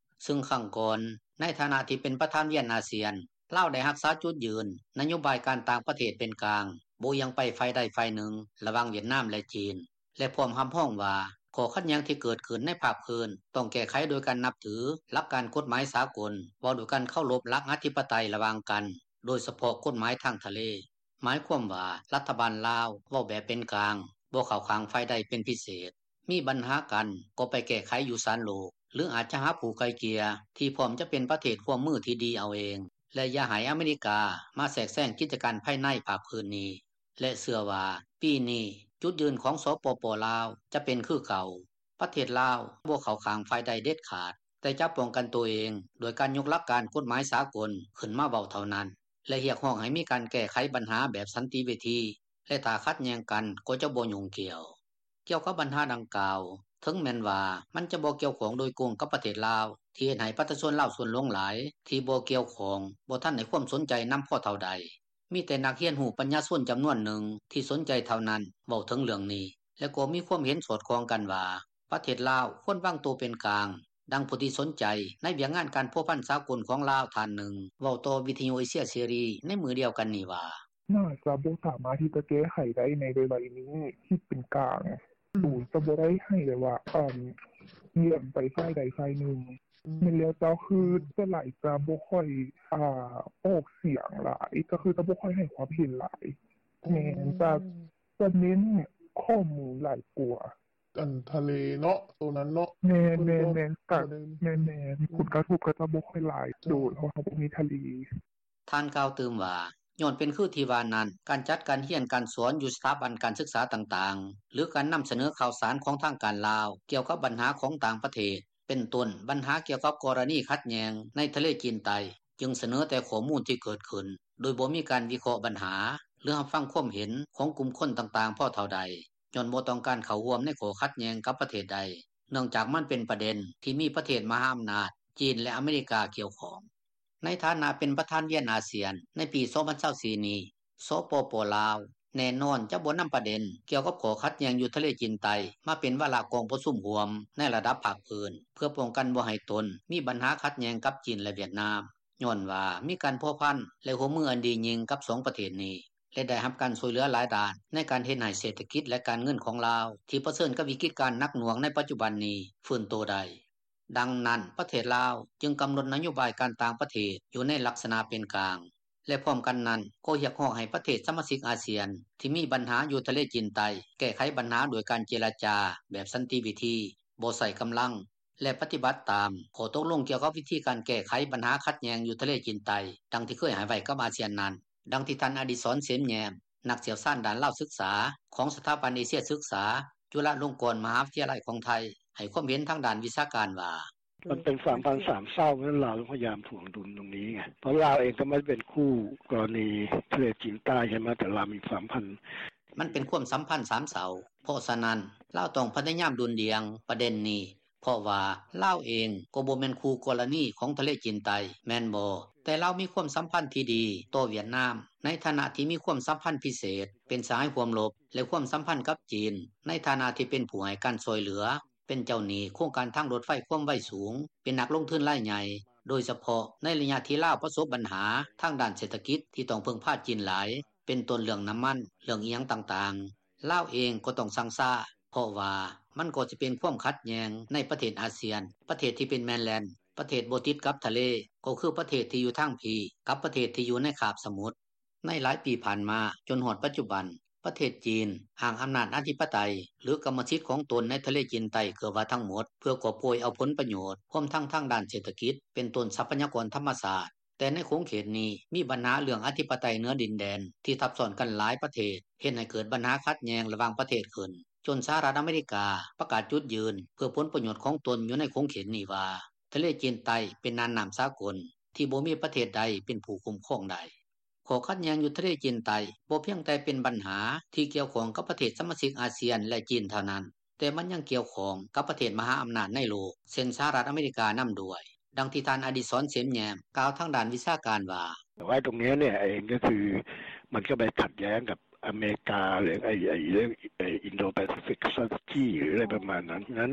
ຊຶ່ງຄັ້ງກ່ອນ ໃນຖານະທີ່ເປັນປະທານວຽນອາຊຽນ ລາວໄດ້ຮັກສາຈຸດຢືນ ນະໂຍບາຍການຕ່າງປະເທດເປັນກາງ ບໍ່ອຽງໄປຝ່າຍໃດຝ່າຍໜຶ່ງ ລະຫວ່າງຫວຽດນາມ ແລະຈີນ ແລະພ້ອມຮັບຮອງວ່າ ຂໍ້ຂັດແຍ່ງທີ່ເກີດຂຶ້ນໃນພາກພື້ນ ຕ້ອງແກ້ໄຂໂດຍການນັບຖື ຫຼັກການກົດໝາຍສາກົນ ເວົ້າດ້ວຍການເຄົາລົບຫຼັກອະທິປະໄຕລະຫວ່າງກັນ ໂດຍສະເພາະກົດໝາຍທາງທະເລ. ໝາຍຄວາມວ່າ ລັດຖະບານລາວ ເວົ້າແບບເປັນກາງ ບໍ່ເຂົ້າຂ້າງຝ່າຍໃດເປັນພິເສດ, ມີບັນຫາກັນ ກໍໄປແກ້ໄຂຢູ່ສານໂລກ ຫຼືອາດຈະຫາຜູ້ໄກ່ເກ່ຍ ທີ່ພ້ອມຈະເປັນປະເທດຮ່ວມມືທີ່ດີເອົາເອງ ແລະຢ່າໃຫ້ອາເມລິກາ ມາແຊກແຊງກິດຈະການພາຍໃນພາກພື້ນນີ້ ແລະເຊື່ອວ່າ ປີນີ້ ຈຸດຢືນຂອງ ສປປ ລາວ ຈະເປັນຄືເກົ່າ. ປະເທດລາວ ບໍ່ເຂົ້າຂ້າງຝ່າຍໃດເດັດຂາດ ແຕ່ຈະປ້ອງກັນໂຕເອງ ດ້ວຍການຍົກຫຼັກການກົດໝາຍສາກົນ ຂຶ້ນມາເວົ້າເທົ່ານັ້ນ ແລະຮຽກຮ້ອງໃຫ້ມີການແກ້ໄຂບັນຫາແບບສັນຕິວິທີ ແລະຖ້າຂັດແຍ່ງກັນ ກໍຈະບໍ່ຫຍຸ້ງກ່ຽວ. ກ່ຽວກັບບັນຫາດັ່ງກ່າວ ເຖິງແມ່ນວ່າ ມັນຈະບໍ່ກ່ຽວຂ້ອງໂດຍກົງກັບປະເທດລາວ ທີ່ເຮັດໃຫ້ປະຊາຊົນລາວສ່ວນຫຼວງຫຼາຍ ທີ່ບໍ່ກ່ຽວຂ້ອງ ບໍ່ທັນໃຫ້ຄວາມສົນໃຈນຳພໍເທົ່າໃດ. ມີແຕ່ນັກຮຽນຮູ້ປັນຍາຊົນຈຳນວນໜຶ່ງ ທີ່ສົນໃຈເທົ່ານັ້ນ ເວົ້າເຖິງເລື່ອງນີ້ ແລະກໍມີຄວາມເຫັນສອດຄ່ອງກັນວ່າ ປະເທດລາວ ຄວນວາງໂຕເປັນກາງ. ດັ່ງຜູ້ທີ່ສົນໃຈ ໃນວຽກງານການພົວພັນສາກົນຂອງລາວ ທ່ານໜຶ່ງ ເວົ້າຕໍ່ວິທຍຸເອເຊຍເສລີ ໃນມື້ດຽວກັນນີ້ວ່າ: “ໜ້າຈະບໍ່ສາມາດທີ່ຈະແກ້ໄຂໄດ້ໃນໄວໆນີ້ ຄິດເປັນກາງ ໂຕຈະບໍ່ໄດ້ໃຫ້ແບບວ່າ ອາ ອຽງໄປຝ່າຍໃດຝ່າຍໜຶ່ງ. ແມ່ນແລ້ວເຈົ້າ ຄືສ່ວນຫຼາຍຈະບໍ່ຄ່ອຍ ອາ ອອກສຽງຫຼາຍ ກໍຄືຈະບໍ່ຄ່ອຍໃຫ້ຄວາມເຫັນຫຼາຍ. ແມ່ນ ຈະ ຈະເນັ້ນຂໍ້ມູນຫຼາຍກວ່າ.” ອັນທະເລເນາະ ໂຕນັ້ນເນາະ ແມ່ນໆ ແມ່ນໆ ຜົນກະທົບກໍຈະບໍ່ຄ່ອຍຫຼາຍ ໂດຍ ເພາະວ່າເຮົາບໍ່ມີທະເລ. ທ່ານກ່າວຕື່ມວ່າ ຍ້ອນເປັນຄືທີ່ວ່ານັ້ນ ການຈັດການຮຽນການສອນຢູ່ສະຖາບັນການສຶກສາຕ່າງໆ ຫຼືການນຳສະເໜີຂ່າວສານຂອງທາງການລາວ ກ່ຽວກັບບັນຫາຂອງຕ່າງປະເທດ ເປັນຕົ້ນບັນຫາກ່ຽວກັບກໍລະນີຂັດແຍ່ງໃນທະເລຈີນໃຕ້ ຈຶ່ງສະເໜີແຕ່ຂໍ້ມູນທີ່ເກີດຂຶ້ນ ໂດຍບໍ່ມີການວິເຄາະບັນຫາ ຫຼືຮັບຟັງຄວາມເຫັນຂອງກຸ່ມຄົນຕ່າງໆພໍເທົ່າໃດ ຍ້ອນບໍ່ຕ້ອງການເຂົ້າຮ່ວມໃນຂໍ້ຂັດແຍ່ງກັບປະເທດໃດ ເນື່ອງຈາກມັນເປັນປະເດັນທີ່ມີປະເທດມະຫາອຳນາດ ຈີນ ແລະອາເມລິກາກ່ຽວຂ້ອງ. ໃນຖານະເປັນປະທານວຽນອາຊຽນ ໃນປີສອງພັນຊາວສີ່ນີ້ ສປປ ລາວ ແນ່ນອນຈະບໍ່ນຳປະເດັນກ່ຽວກັບຂໍ້ຂັດແຍ່ງຢູ່ທະເລຈີນໃຕ້ ມາເປັນວາລະກອງປະຊຸມຮ່ວມໃນລະດັບພາກພື້ນ ເພື່ອປ້ອງກັນບໍ່ໃຫ້ຕົນມີບັນຫາຂັດແຍ່ງກັບຈີນ ແລະຫວຽດນາມ ຍ້ອນວ່າມີການພົວພັນ ແລະຮ່ວມມືອັນດີຍິ່ງກັບສອງປະເທດນີ້ ແລະໄດ້ຮັບການຊ່ວຍເຫຼືອຫຼາຍດ້ານໃນການເຮັດໃຫ້ເສດຖະກິດ ແລະການເງິນຂອງລາວ ທີ່ປະເຊີນກັບວິກິດການໜັກໜ່ວງໃນປັດຈຸບັນນີ້ຟື້ນໂຕໄດ້. ດັ່ງນັ້ນ ປະເທດລາວຈຶ່ງກຳນົດນະໂຍບາຍການຕ່າງປະເທດຢູ່ໃນລັກສະນະເປັນກາງ ແລະພ້ອມກັນນັ້ນ ກໍຮຽກຮ້ອງໃຫ້ປະເທດສະມາຊິກອາຊຽນ ທີ່ມີບັນຫາຢູ່ທະເລຈີນໃຕ້ ແກ້ໄຂບັນຫາດ້ວຍການເຈລະຈາແບບສັນຕິວິທີ ບໍ່ໃຊ້ກຳລັງ ແລະປະຕິບັດຕາມຂໍ້ຕົກລົງກ່ຽວກັບວິທີການແກ້ໄຂບັນຫາຂັດແຍ່ງຢູ່ທະເລຈີນໃຕ້ ດັ່ງທີ່ເຄີຍໃຫ້ໄວ້ກັບອາຊຽນນັ້ນ. ດັ່ງທີ່ທ່ານ ອະດິສອນ ເສມແຍ້ມ ນັກຊ່ຽວຊານດ້ານລາວສຶກສາ ຂອງສະຖາບັນເອເຊຍສຶກສາ ຈຸລາລົງກອນມະຫາວິທະຍາໄລຂອງໄທ ໃຫ້ຄວາມເຫັນທາງດ້ານວິຊາການວ່າ: “ມັນເປັນສາມພັນສາມເຊົາ ເພາະນັ້ນລາວຕ້ອງພະຍາຍາມຖ່ວງດຸນຕົງນີ້ໄງ ເພາະລາວເອງກໍບໍ່ໄດ້ເປັນຄູ່ກໍລະນີທະເລຈີນໃຕ້ໃຊ່ໄໝ ແຕ່ລາວມີສາມພັນ.” ມັນເປັນຄວາມສຳພັນສາມເຊົາ ເພາະສະນັ້ນ ລາວຕ້ອງພະຍາຍາມດຸ່ນດ່ຽງປະເດັນນີ້ ເພາະວ່າລາວເອງກໍບໍ່ແມ່ນຄູ່ກໍລະນີຂອງທະເລຈີນໃຕ້ ແມ່ນບໍ່? ແຕ່ລາວມີຄວາມສຳພັນທີ່ດີຕໍ່ຫວຽດນາມ ໃນຖານະທີ່ມີຄວາມສຳພັນພິເສດ ເປັນສະຫາຍຮ່ວມລົບ ແລະຄວາມສຳພັນກັບຈີນ ໃນຖານະທີ່ເປັນຜູ້ໃຫ້ການຊ່ວຍເຫຼືອ ເປັນເຈົ້າໜີ້ໂຄງການທາງລົດໄຟຄວາມໄວສູງ ເປັນນັກລົງທຶນລາຍໃຫຍ່ ໂດຍສະເພາະໃນໄລຍະທີ່ລາວປະສົບບັນຫາທາງດ້ານເສດຖະກິດ ທີ່ຕ້ອງເພິ່ງພາຈີນຫຼາຍ ເປັນຕົ້ນເລື່ອງນ້ຳມັນ ເລື່ອງອີ່ຫຍັງຕ່າງໆ. ລາວເອງກໍຕ້ອງຊັ່ງຊ້າ ເພາະວ່າມັນກໍຈະເປັນຄວາມຂັດແຍ່ງໃນປະເທດອາຊຽນ ປະເທດທີ່ເປັນແມນແລນ ປະເທດບໍ່ຕິດກັບທະເລ ກໍຄືປະເທດທີ່ຢູ່ທາງພີ້ ກັບປະເທດທີ່ຢູ່ໃນຄາບສະໝຸດ. ໃນຫຼາຍປີຜ່ານມາ ຈົນຮອດປັດຈຸບັນ ປະເທດຈີນ ອ້າງອຳນາດອະທິປະໄຕ ຫຼືກຳມະສິດຂອງຕົນໃນທະເລຈີນໃຕ້ເກືອບວ່າທັງໝົດ ເພື່ອກອບໂກຍເອົາຜົນປະໂຫຍດ ຮວມທັງທາງດ້ານເສດຖະກິດ ເປັນຕົ້ນຊັບພະຍາກອນທຳມະຊາດ. ແຕ່ໃນຂົງເຂດນີ້ ມີບັນຫາເລື່ອງອະທິປະໄຕເໜືອດິນແດນ ທີ່ທັບຊ້ອນກັນຫຼາຍປະເທດ ເຮັດໃຫ້ເກີດບັນຫາຂັດແຍ່ງລະຫວ່າງປະເທດຂຶ້ນ ຈົນສະຫະລັດອາເມລິກາປະກາດຈຸດຢືນ ເພື່ອຜົນປະໂຫຍດຂອງຕົນຢູ່ໃນຂົງເຂດນີ້ວ່າ ທະເລຈີນໃຕ້ເປັນນ່ານນ້ຳສາກົນ ທີ່ບໍ່ມີປະເທດໃດເປັນຜູ້ຄຸ້ມຄອງໄດ້. ຂໍ້ຂັດແຍ່ງຢູ່ທະເລຈີນໃຕ້ ບໍ່ພຽງແຕ່ເປັນບັນຫາທີ່ກ່ຽວຂ້ອງກັບປະເທດສະມາຊິກອາຊຽນ ແລະ ຈີນເທົ່ານັ້ນ, ແຕ່ມັນຍັງກ່ຽວຂ້ອງກັບປະເທດມະຫາອຳນາດໃນໂລກ ເຊັ່ນ ສະຫະລັດອາເມລິການຳດ້ວຍ. ດັ່ງທີ່ທ່ານ ອະດິສອນ ເສມແຍ້ມ ກ່າວທາງດ້ານວິຊາການວ່າ: “ແຕ່ວ່າຕົງເນີ້ຍເອງກໍຄື ມັນກໍໄປຂັດແຍ້ງກັບ ອາເມລິກາ ຫຼື Indo-Pacific Strategy ຫຼື ອະໄລປະມານນັ້ນ.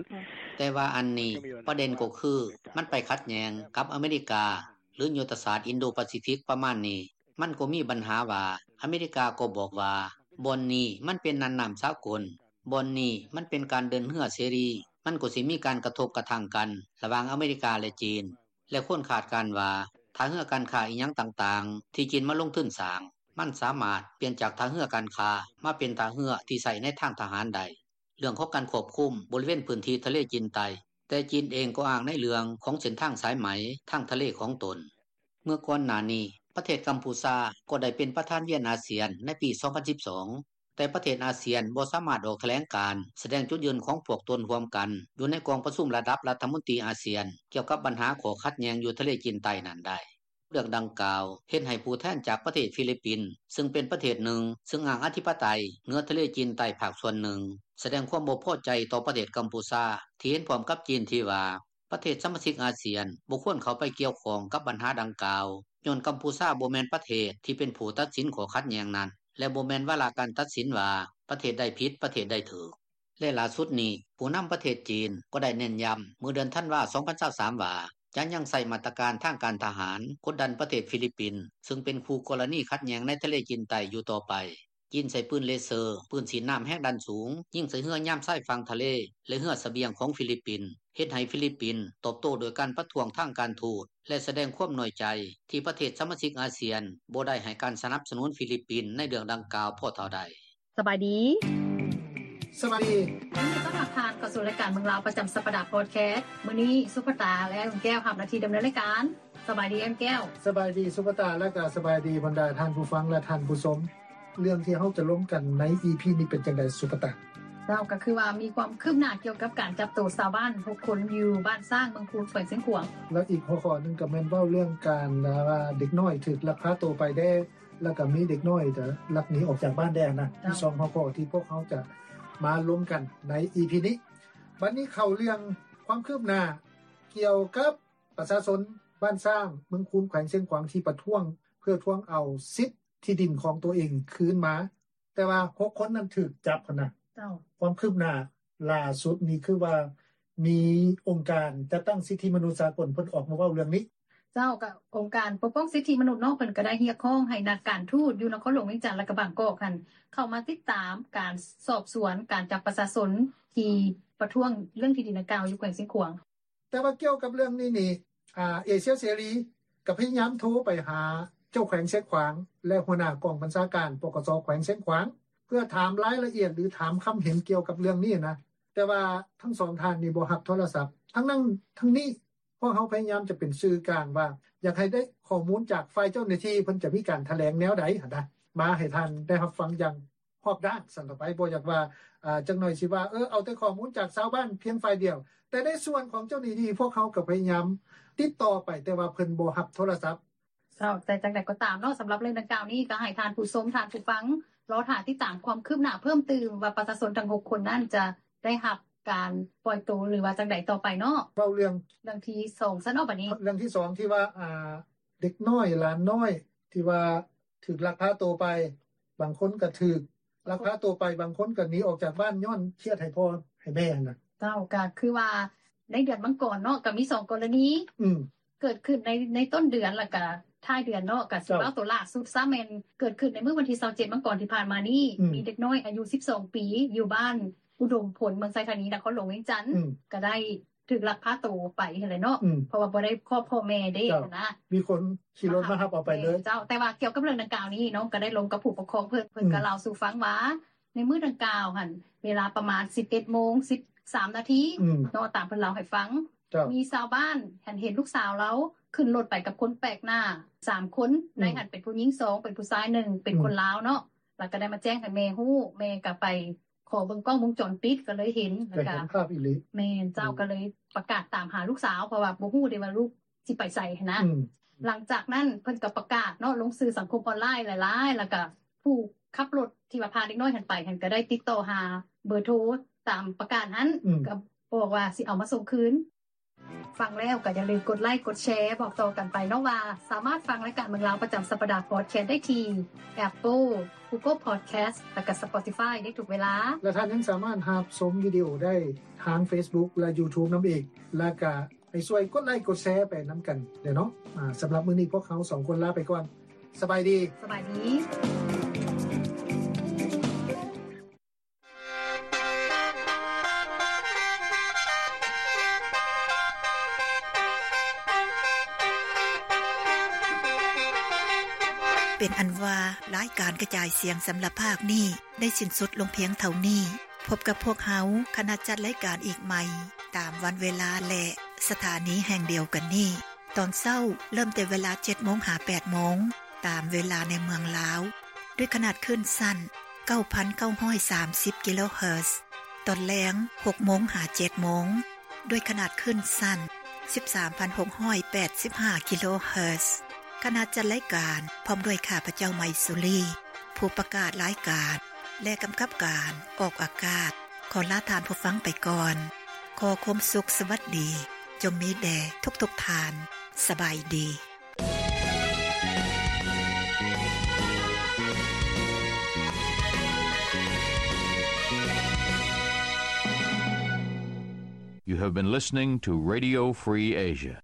ແຕ່ວ່າອັນນີ້ ປະເດັນກໍຄື ມັນໄປຂັດແຍ່ງກັບອາເມລິກາ ຫຼື ຍຸດທະສາດອິນໂດປາຊີຟິກປະມານນີ້. ມັນກໍມີບັນຫາວ່າ ອາເມລິກາກໍບອກວ່າ ບ່ອນນີ້ມັນເປັນນ່ານນ້ຳສາກົນ, ບ່ອນນີ້ມັນເປັນການເດີນເຮືອເສລີ, ມັນກໍຊິມີການກະທົບກະທັ່ງກັນ ລະຫວ່າງອາເມລິກາ ແລະ ຈີນ. ແລະ ຄົນຄາດການວ່າ ທ່າເຮືອການຄ້າອີ່ຫຍັງຕ່າງໆ ທີ່ຈີນມາລົງທຶນສ້າງ ມັນສາມາດປ່ຽນຈາກທ່າເຮືອການຄ້າ ມາເປັນທ່າເຮືອທີ່ໃຊ້ໃນທາງທະຫານໄດ້. ເລື່ອງຂອງການຄວບຄຸມບໍລິເວນພື້ນທີ່ທະເລຈີນໃຕ້, ແຕ່ຈີນເອງກໍອ້າງໃນເລື່ອງຂອງເສັ້ນທາງສາຍໄໝທາງທະເລຂອງຕົນ. ເມື່ອກ່ອນໜ້ານີ້ ປະເທດກຳພູຊາກໍໄດ້ເປັນປະທານວຽນອາຊຽນໃນປີສອງພັນສິບສອງ, ແຕ່ປະເທດອາຊຽນບໍ່ສາມາດອອກຖະແຫຼງການສະແດງຈຸດຢືນຂອງພວກຕົນຮ່ວມກັນ ຢູ່ໃນກອງປະຊຸມລະດັບລັດຖະມົນຕີອາຊຽນ ກ່ຽວກັບບັນຫາຂໍ້ຂັດແຍ່ງຢູ່ທະເລຈີນໃຕ້ນັ້ນໄດ້. ເລື່ອງດັ່ງກ່າວເຮັດໃຫ້ຜູ້ແທນຈາກປະເທດຟີລິບປິນ ຊຶ່ງເປັນປະເທດໜຶ່ງຊຶ່ງອ້າງອະທິປະໄຕເໜືອທະເລຈີນໃຕ້ພາກສ່ວນໜຶ່ງ ສະແດງຄວາມບໍ່ພໍໃຈຕໍ່ປະເທດກຳພູຊາ ທີ່ເຫັນພ້ອມກັບຈີນທີ່ວ່າ ປະເທດສະມາຊິກອາຊຽນບໍ່ຄວນເຂົ້າໄປກ່ຽວຂ້ອງກັບບັນຫາດັ່ງກ່າວ ຍ້ອນກຳພູຊາບໍ່ແມ່ນປະເທດທີ່ເປັນຜູ້ຕັດສິນຂໍ້ຂັດແຍ່ງນັ້ນ ແລະ ບໍ່ແມ່ນວາລະການຕັດສິນວ່າປະເທດໃດຜິດ ປະເທດໃດຖືກ. ແລະ ຫຼ້າສຸດນີ້ ຜູ້ນຳປະເທດຈີນກໍໄດ້ເນັ້ນຢ້ຳເມື່ອເດືອນທັນວາ ສອງພັນຊາວສາມ ວ່າ ຈະຍັງໃຊ້ມາດຕະການທາງການທະຫານກົດດັນປະເທດຟີລິບປິນ ຊຶ່ງເປັນຄູ່ກໍລະນີຂັດແຍ່ງໃນທະເລຈີນໃຕ້ຢູ່ຕໍ່ໄປ. ຈີນໃຊ້ປືນເລເຊີ, ປືນສີດນ້ຳແຮງດັນສູງ ຍິງໃສ່ເຮືອຍາມຊາຍຝັ່ງທະເລ ແລະ ເຮືອສະບຽງຂອງຟີລິບປິນ, ເຮັດໃຫ້ຟີລິບປິນຕອບໂຕ້ດ້ວຍການປະທ້ວງທາງການທູດ ແລະ ສະແດງຄວາມນ້ອຍໃຈທີ່ປະເທດສະມາຊິກອາຊຽນບໍ່ໄດ້ໃຫ້ການສະໜັບສະໜູນຟີລິບປິນໃນເລື່ອງດັ່ງກ່າວພໍເທົ່າໃດ. ສະບາຍດີ. ສະບາຍດີ. ຍິນດີຕ້ອນຮັບທ່ານເຂົ້າສູ່ລາຍການເມືອງລາວປະຈຳສັບປະດາພອດແຄສ. ມື້ນີ້ສຸພະຕາ ແລະ ອ້າຍແກ້ວຮັບໜ້າທີ່ດຳເນີນລາຍການ. ສະບາຍດີອ້າຍແກ້ວ. ສະບາຍດີສຸພະຕາ ແລະ ກໍສະບາຍດີບັນດາທ່ານຜູ້ຟັງ ແລະ ທ່ານຜູ້ຊົມ. ເລື່ອງທີ່ເຮົາຈະລົມກັນໃນອີພີນີ້ເປັນຈັ່ງໃດສຸພະຕາ? ເຈົ້າ ກໍຄືວ່າມີຄວາມຄືບໜ້າກ່ຽວກັບການຈັບໂຕຊາວບ້ານຫົກຄົນຢູ່ບ້ານຊ້າງ ເມືອງຄູນ ແຂວງຊຽງຂວາງ. ແລ້ວອີກຫົວຂໍ້ໜຶ່ງກໍແມ່ນເວົ້າເລື່ອງການວ່າເດັກນ້ອຍຖືກລັກພາໂຕໄປແດ່ ແລ້ວກໍມີເດັກນ້ອຍຈະລັກໜີອອກຈາກບ້ານແດ່ນະ. ເຈົ້າ. ມີສອງຫົວຂໍ້ທີ່ພວກເຮົາຈະມາລົມກັນໃນອີພີນີ້. ບັດນີ້ເຂົ້າເລື່ອງຄວາມຄືບໜ້າກ່ຽວກັບປະຊາຊົນບ້ານຊ້າງ ເມືອງຄູນ ແຂວງຊຽງຂວາງ ທີ່ປະທ້ວງເພື່ອທວງເອົາສິດທີ່ດິນຂອງຕົວເອງຄືນມາ. ແຕ່ວ່າຫົກຄົນນັ້ນຖືກຈັບຫັ້ນນະ. ເຈົ້າ. ຄວາມຄືບໜ້າຫຼ້າສຸດນີ້ຄືວ່າມີອົງການຈັດຕັ້ງສິດທິມະນຸດສາກົນເພິ່ນອອກມາເວົ້າເລື່ອງນີ້. ເຈົ້າ. ກໍອົງການປົກປ້ອງສິດທິມະນຸດເນາະ ເພິ່ນກໍໄດ້ຮຽກຮ້ອງໃຫ້ນັກການທູດຢູ່ນະຄອນຫຼວງວຽງຈັນ ແລະ ກໍບາງກອກຫັ້ນ ເຂົ້າມາຕິດຕາມການສອບສວນການຈັບປະຊາຊົນທີ່ປະທ້ວງເລື່ອງທີ່ດິນດັ່ງກ່າວຢູ່ແຂວງຊຽງຂວາງ. ແຕ່ວ່າກ່ຽວກັບເລື່ອງນີ້ນີ້ ອາ ເອເຊຍເສລີກໍພະຍາຍາມໂທໄປຫາເຈົ້າແຂວງຊຽງຂວາງ ແລະ ຫົວໜ້າກອງບັນຊາການ ປກສ ແຂວງຊຽງຂວາງ ເພື່ອຖາມລາຍລະອຽດ ຫຼື ຖາມຄຳເຫັນກ່ຽວກັບເລື່ອງນີ້ນະ, ແຕ່ວ່າທັງສອງທ່ານນີ້ບໍ່ຮັບໂທລະສັບ. ທັງນັ້ນທັງນີ້ ພວກເຮົາພະຍາຍາມຈະເປັນສື່ກາງວ່າ ຢາກໃຫ້ໄດ້ຂໍ້ມູນຈາກຝ່າຍເຈົ້າໜ້າທີ່ ເພິ່ນຈະມີການຖະແຫຼງແນວໃດຫັ້ນນະ ມາໃຫ້ທ່ານໄດ້ຮັບຟັງຢ່າງຮອບດ້ານຊັ້ນຕໍ່ໄປ. ບໍ່ຢາກວ່າ ອາ ຈັກໜ້ອຍຊິວ່າ ເອີ ເອົາແຕ່ຂໍ້ມູນຈາກຊາວບ້ານພຽງຝ່າຍດຽວ, ແຕ່ໃນສ່ວນຂອງເຈົ້າໜ້າທີ່ ພວກເຮົາກໍພະຍາຍາມຕິດຕໍ່ໄປ ແຕ່ວ່າເພິ່ນບໍ່ຮັບໂທລະສັບ. ເຈົ້າ, ແຕ່ຈັ່ງໃດກໍຕາມເນາະ, ສຳລັບເລື່ອງດັ່ງກ່າວນີ້ ກໍໃຫ້ທ່ານຜູ້ຊົມ, ທ່ານຜູ້ຟັງ ລໍຖ້າຕິດຕາມຄວາມຄືບໜ້າເພີ່ມຕື່ມວ່າ ປະຊາຊົນທັງຫົກຄົນນັ້ນຈະໄດ້ຮັບການປ່ອຍໂຕ ຫຼືວ່າຈັ່ງໃດຕໍ່ໄປເນາະ. ເວົ້າເລື່ອງ ເລື່ອງທີສອງຊັ້ນເນາະ ບັດນີ້. ເລື່ອງທີສອງທີ່ວ່າ ອ່າ ເດັກນ້ອຍ ຫຼານນ້ອຍ ທີ່ວ່າຖືກລັກພາໂຕໄປ, ບາງຄົນກໍຖືກລັກພາໂຕໄປ, ບາງຄົນກໍໜີອອກຈາກບ້ານຍ້ອນຄຽດໃຫ້ພໍ່ໃຫ້ແມ່ຫັ້ນນະ. ເຈົ້າ, ກໍຄືວ່າໃນເດືອນມັງກອນເນາະ ກໍມີສອງກໍລະນີ ອືມ ເກີດຂຶ້ນໃນ ໃນຕົ້ນເດືອນ ແລ້ວກໍທ້າຍເດືອນເນາະ. ກໍຊິ ເຈົ້າ ເວົ້າໂຕຫຼ້າສຸດຊະ ແມ່ນເກີດຂຶ້ນໃນມື້ວັນທີຊາວເຈັດມັງກອນທີ່ຜ່ານມານີ້ ອືມ ມີເດັກນ້ອຍອາຍຸສິບສອງປີ ຢູ່ບ້ານອຸດົມພົນ ເມືອງໄຊທານີ ນະຄອນຫຼວງວຽງຈັນ ອືມ ກໍໄດ້ ຖືກລັກພາໂຕໄປຫັ້ນແຫຼະເນາະ ອືມ ເພາະວ່າບໍ່ໄດ້ຄອບພໍ່ແມ່ເດ້ ເຈົ້າ ນະ ມີຄົນຂີ່ລົດມາຮັບເອົາໄປເລີຍ. ແມ່ນເຈົ້າ, ແຕ່ວ່າກ່ຽວກັບເລື່ອງດັ່ງກ່າວນີ້ ນ້ອງກໍໄດ້ລົມກັບຜູ້ປົກຄອງເພິ່ນ, ເພິ່ນ ອືມ ກໍເລົ່າສູ່ຟັງວ່າ ໃນມື້ດັ່ງກ່າວຫັ້ນ ເວລາປະມານສິບເອັດໂມງສິບສາມນາທີ ອືມ ເນາະ, ຕາມເພິ່ນເລົ່າໃຫ້ຟັງ ເຈົ້າ ມີຊາວບ້ານຫັ້ນເຫັນລູກສາວລາວຂຶ້ນລົດໄປກັບຄົນແປກໜ້າສາມຄົນ ອືມ ໃນຫັ້ນເປັນຜູ້ຍິງສອງ ເປັນຜູ້ຊາຍໜຶ່ງ ເປັນ ອືມ ຄົນລາວເນາະ, ແລ້ວກໍໄດ້ມາແຈ້ງໃຫ້ແມ່ຮູ້, ແມ່ກໍໄປ ຂໍເບິ່ງກ້ອງວົງຈອນປິດກໍເລີຍເຫັນ ກໍເຫັນພາບອີ່ຫຼີ. ແມ່ນເຈົ້າ. ອືມ ກໍເລີຍປະກາດຕາມຫາລູກສາວ ເພາະວ່າບໍ່ຮູ້ເດ້ວ່າລູກຊິໄປໃສຫັ້ນນະ. ອືມ ຫຼັງຈາກນັ້ນເພິ່ນກໍປະກາດເນາະ ລົງສື່ສັງຄົມອອນລາຍຫຼາຍໆ ແລ້ວກໍຜູ້ຂັບລົດທີ່ວ່າພາເດັກນ້ອຍຫັ້ນໄປຫັ້ນ ກໍໄດ້ຕິດຕໍ່ຫາເບີໂທຕາມປະກາດຫັ້ນ ອືມ ກໍບອກວ່າຊິເອົາມາສົ່ງຄືນ. ຟັງແລ້ວກໍຢ່າລືມກົດໄລ້ກົດແຊ ບອກຕໍ່ກັນໄປເນາະວ່າ ສາມາດຟັງລາຍການເມືອງລາວປະຈຳສັບປະດາ Podcast ໄດ້ທີ່ Apple, Google Podcast ແລະກໍ Spotify ໄດ້ທຸກເວລາ ແລະທ່ານຍັງສາມາດຮັບຊົມວິດີໂອໄດ້ທາງ Facebook ແລະ YouTube ນຳອີກ ແລະກະໃຫ້ຊ່ວຍກົດໄລ້ກົດແຊໄປນຳກັນເດີເນາະ. ອາ ສຳລັບມື້ນີ້ພວກເຮົາສອງຄົນລາໄປກ່ອນ. ສະບາຍດີ. ສະບາຍດີ. ເປັນອັນວ່າ ລາຍການກະຈາຍສຽງສຳລັບພາກນີ້ ໄດ້ສິ້ນສຸດລົງພຽງເທົ່ານີ້. ພົບກັບພວກເຮົາ ຄະນະຈັດລາຍການອີກໃໝ່ ຕາມວັນເວລາ ແລະ ສະຖານີແຫ່ງດຽວກັນນີ້. ຕອນເຊົ້າເລີ່ມແຕ່ເວລາເຈັດໂມງຫາແປດໂມງ ຕາມເວລາໃນເມືອງລາວ ດ້ວຍຂະໜາດຄື້ນສັ້ນເກົ້າພັນເກົ້າຮ້ອຍສາມສິບກິໂລເຮີດ. ຕອນແລງຫົກໂມງຫາເຈັດໂມງ ດ້ວຍຂະໜາດຄື້ນສັ້ນສິບສາມພັນຫົກຮ້ອຍແປດສິບຫ້າກິໂລເຮີດ. ຄະນະຈັດລາຍການ ພ້ອມດ້ວຍຂ້າພະເຈົ້າ ໄມສຸລີ ຜູ້ປະກາດລາຍການ ແລະ ກຳກັບການອອກອາກາດ ຂໍລາທ່ານຜູ້ຟັງໄປກ່ອນ. ຂໍຄວາມສຸກສະຫວັດດີ ຈົ່ງມີແດ່ທຸກໆທ່ານ. ສະບາຍດີ. You have been listening to Radio Free Asia.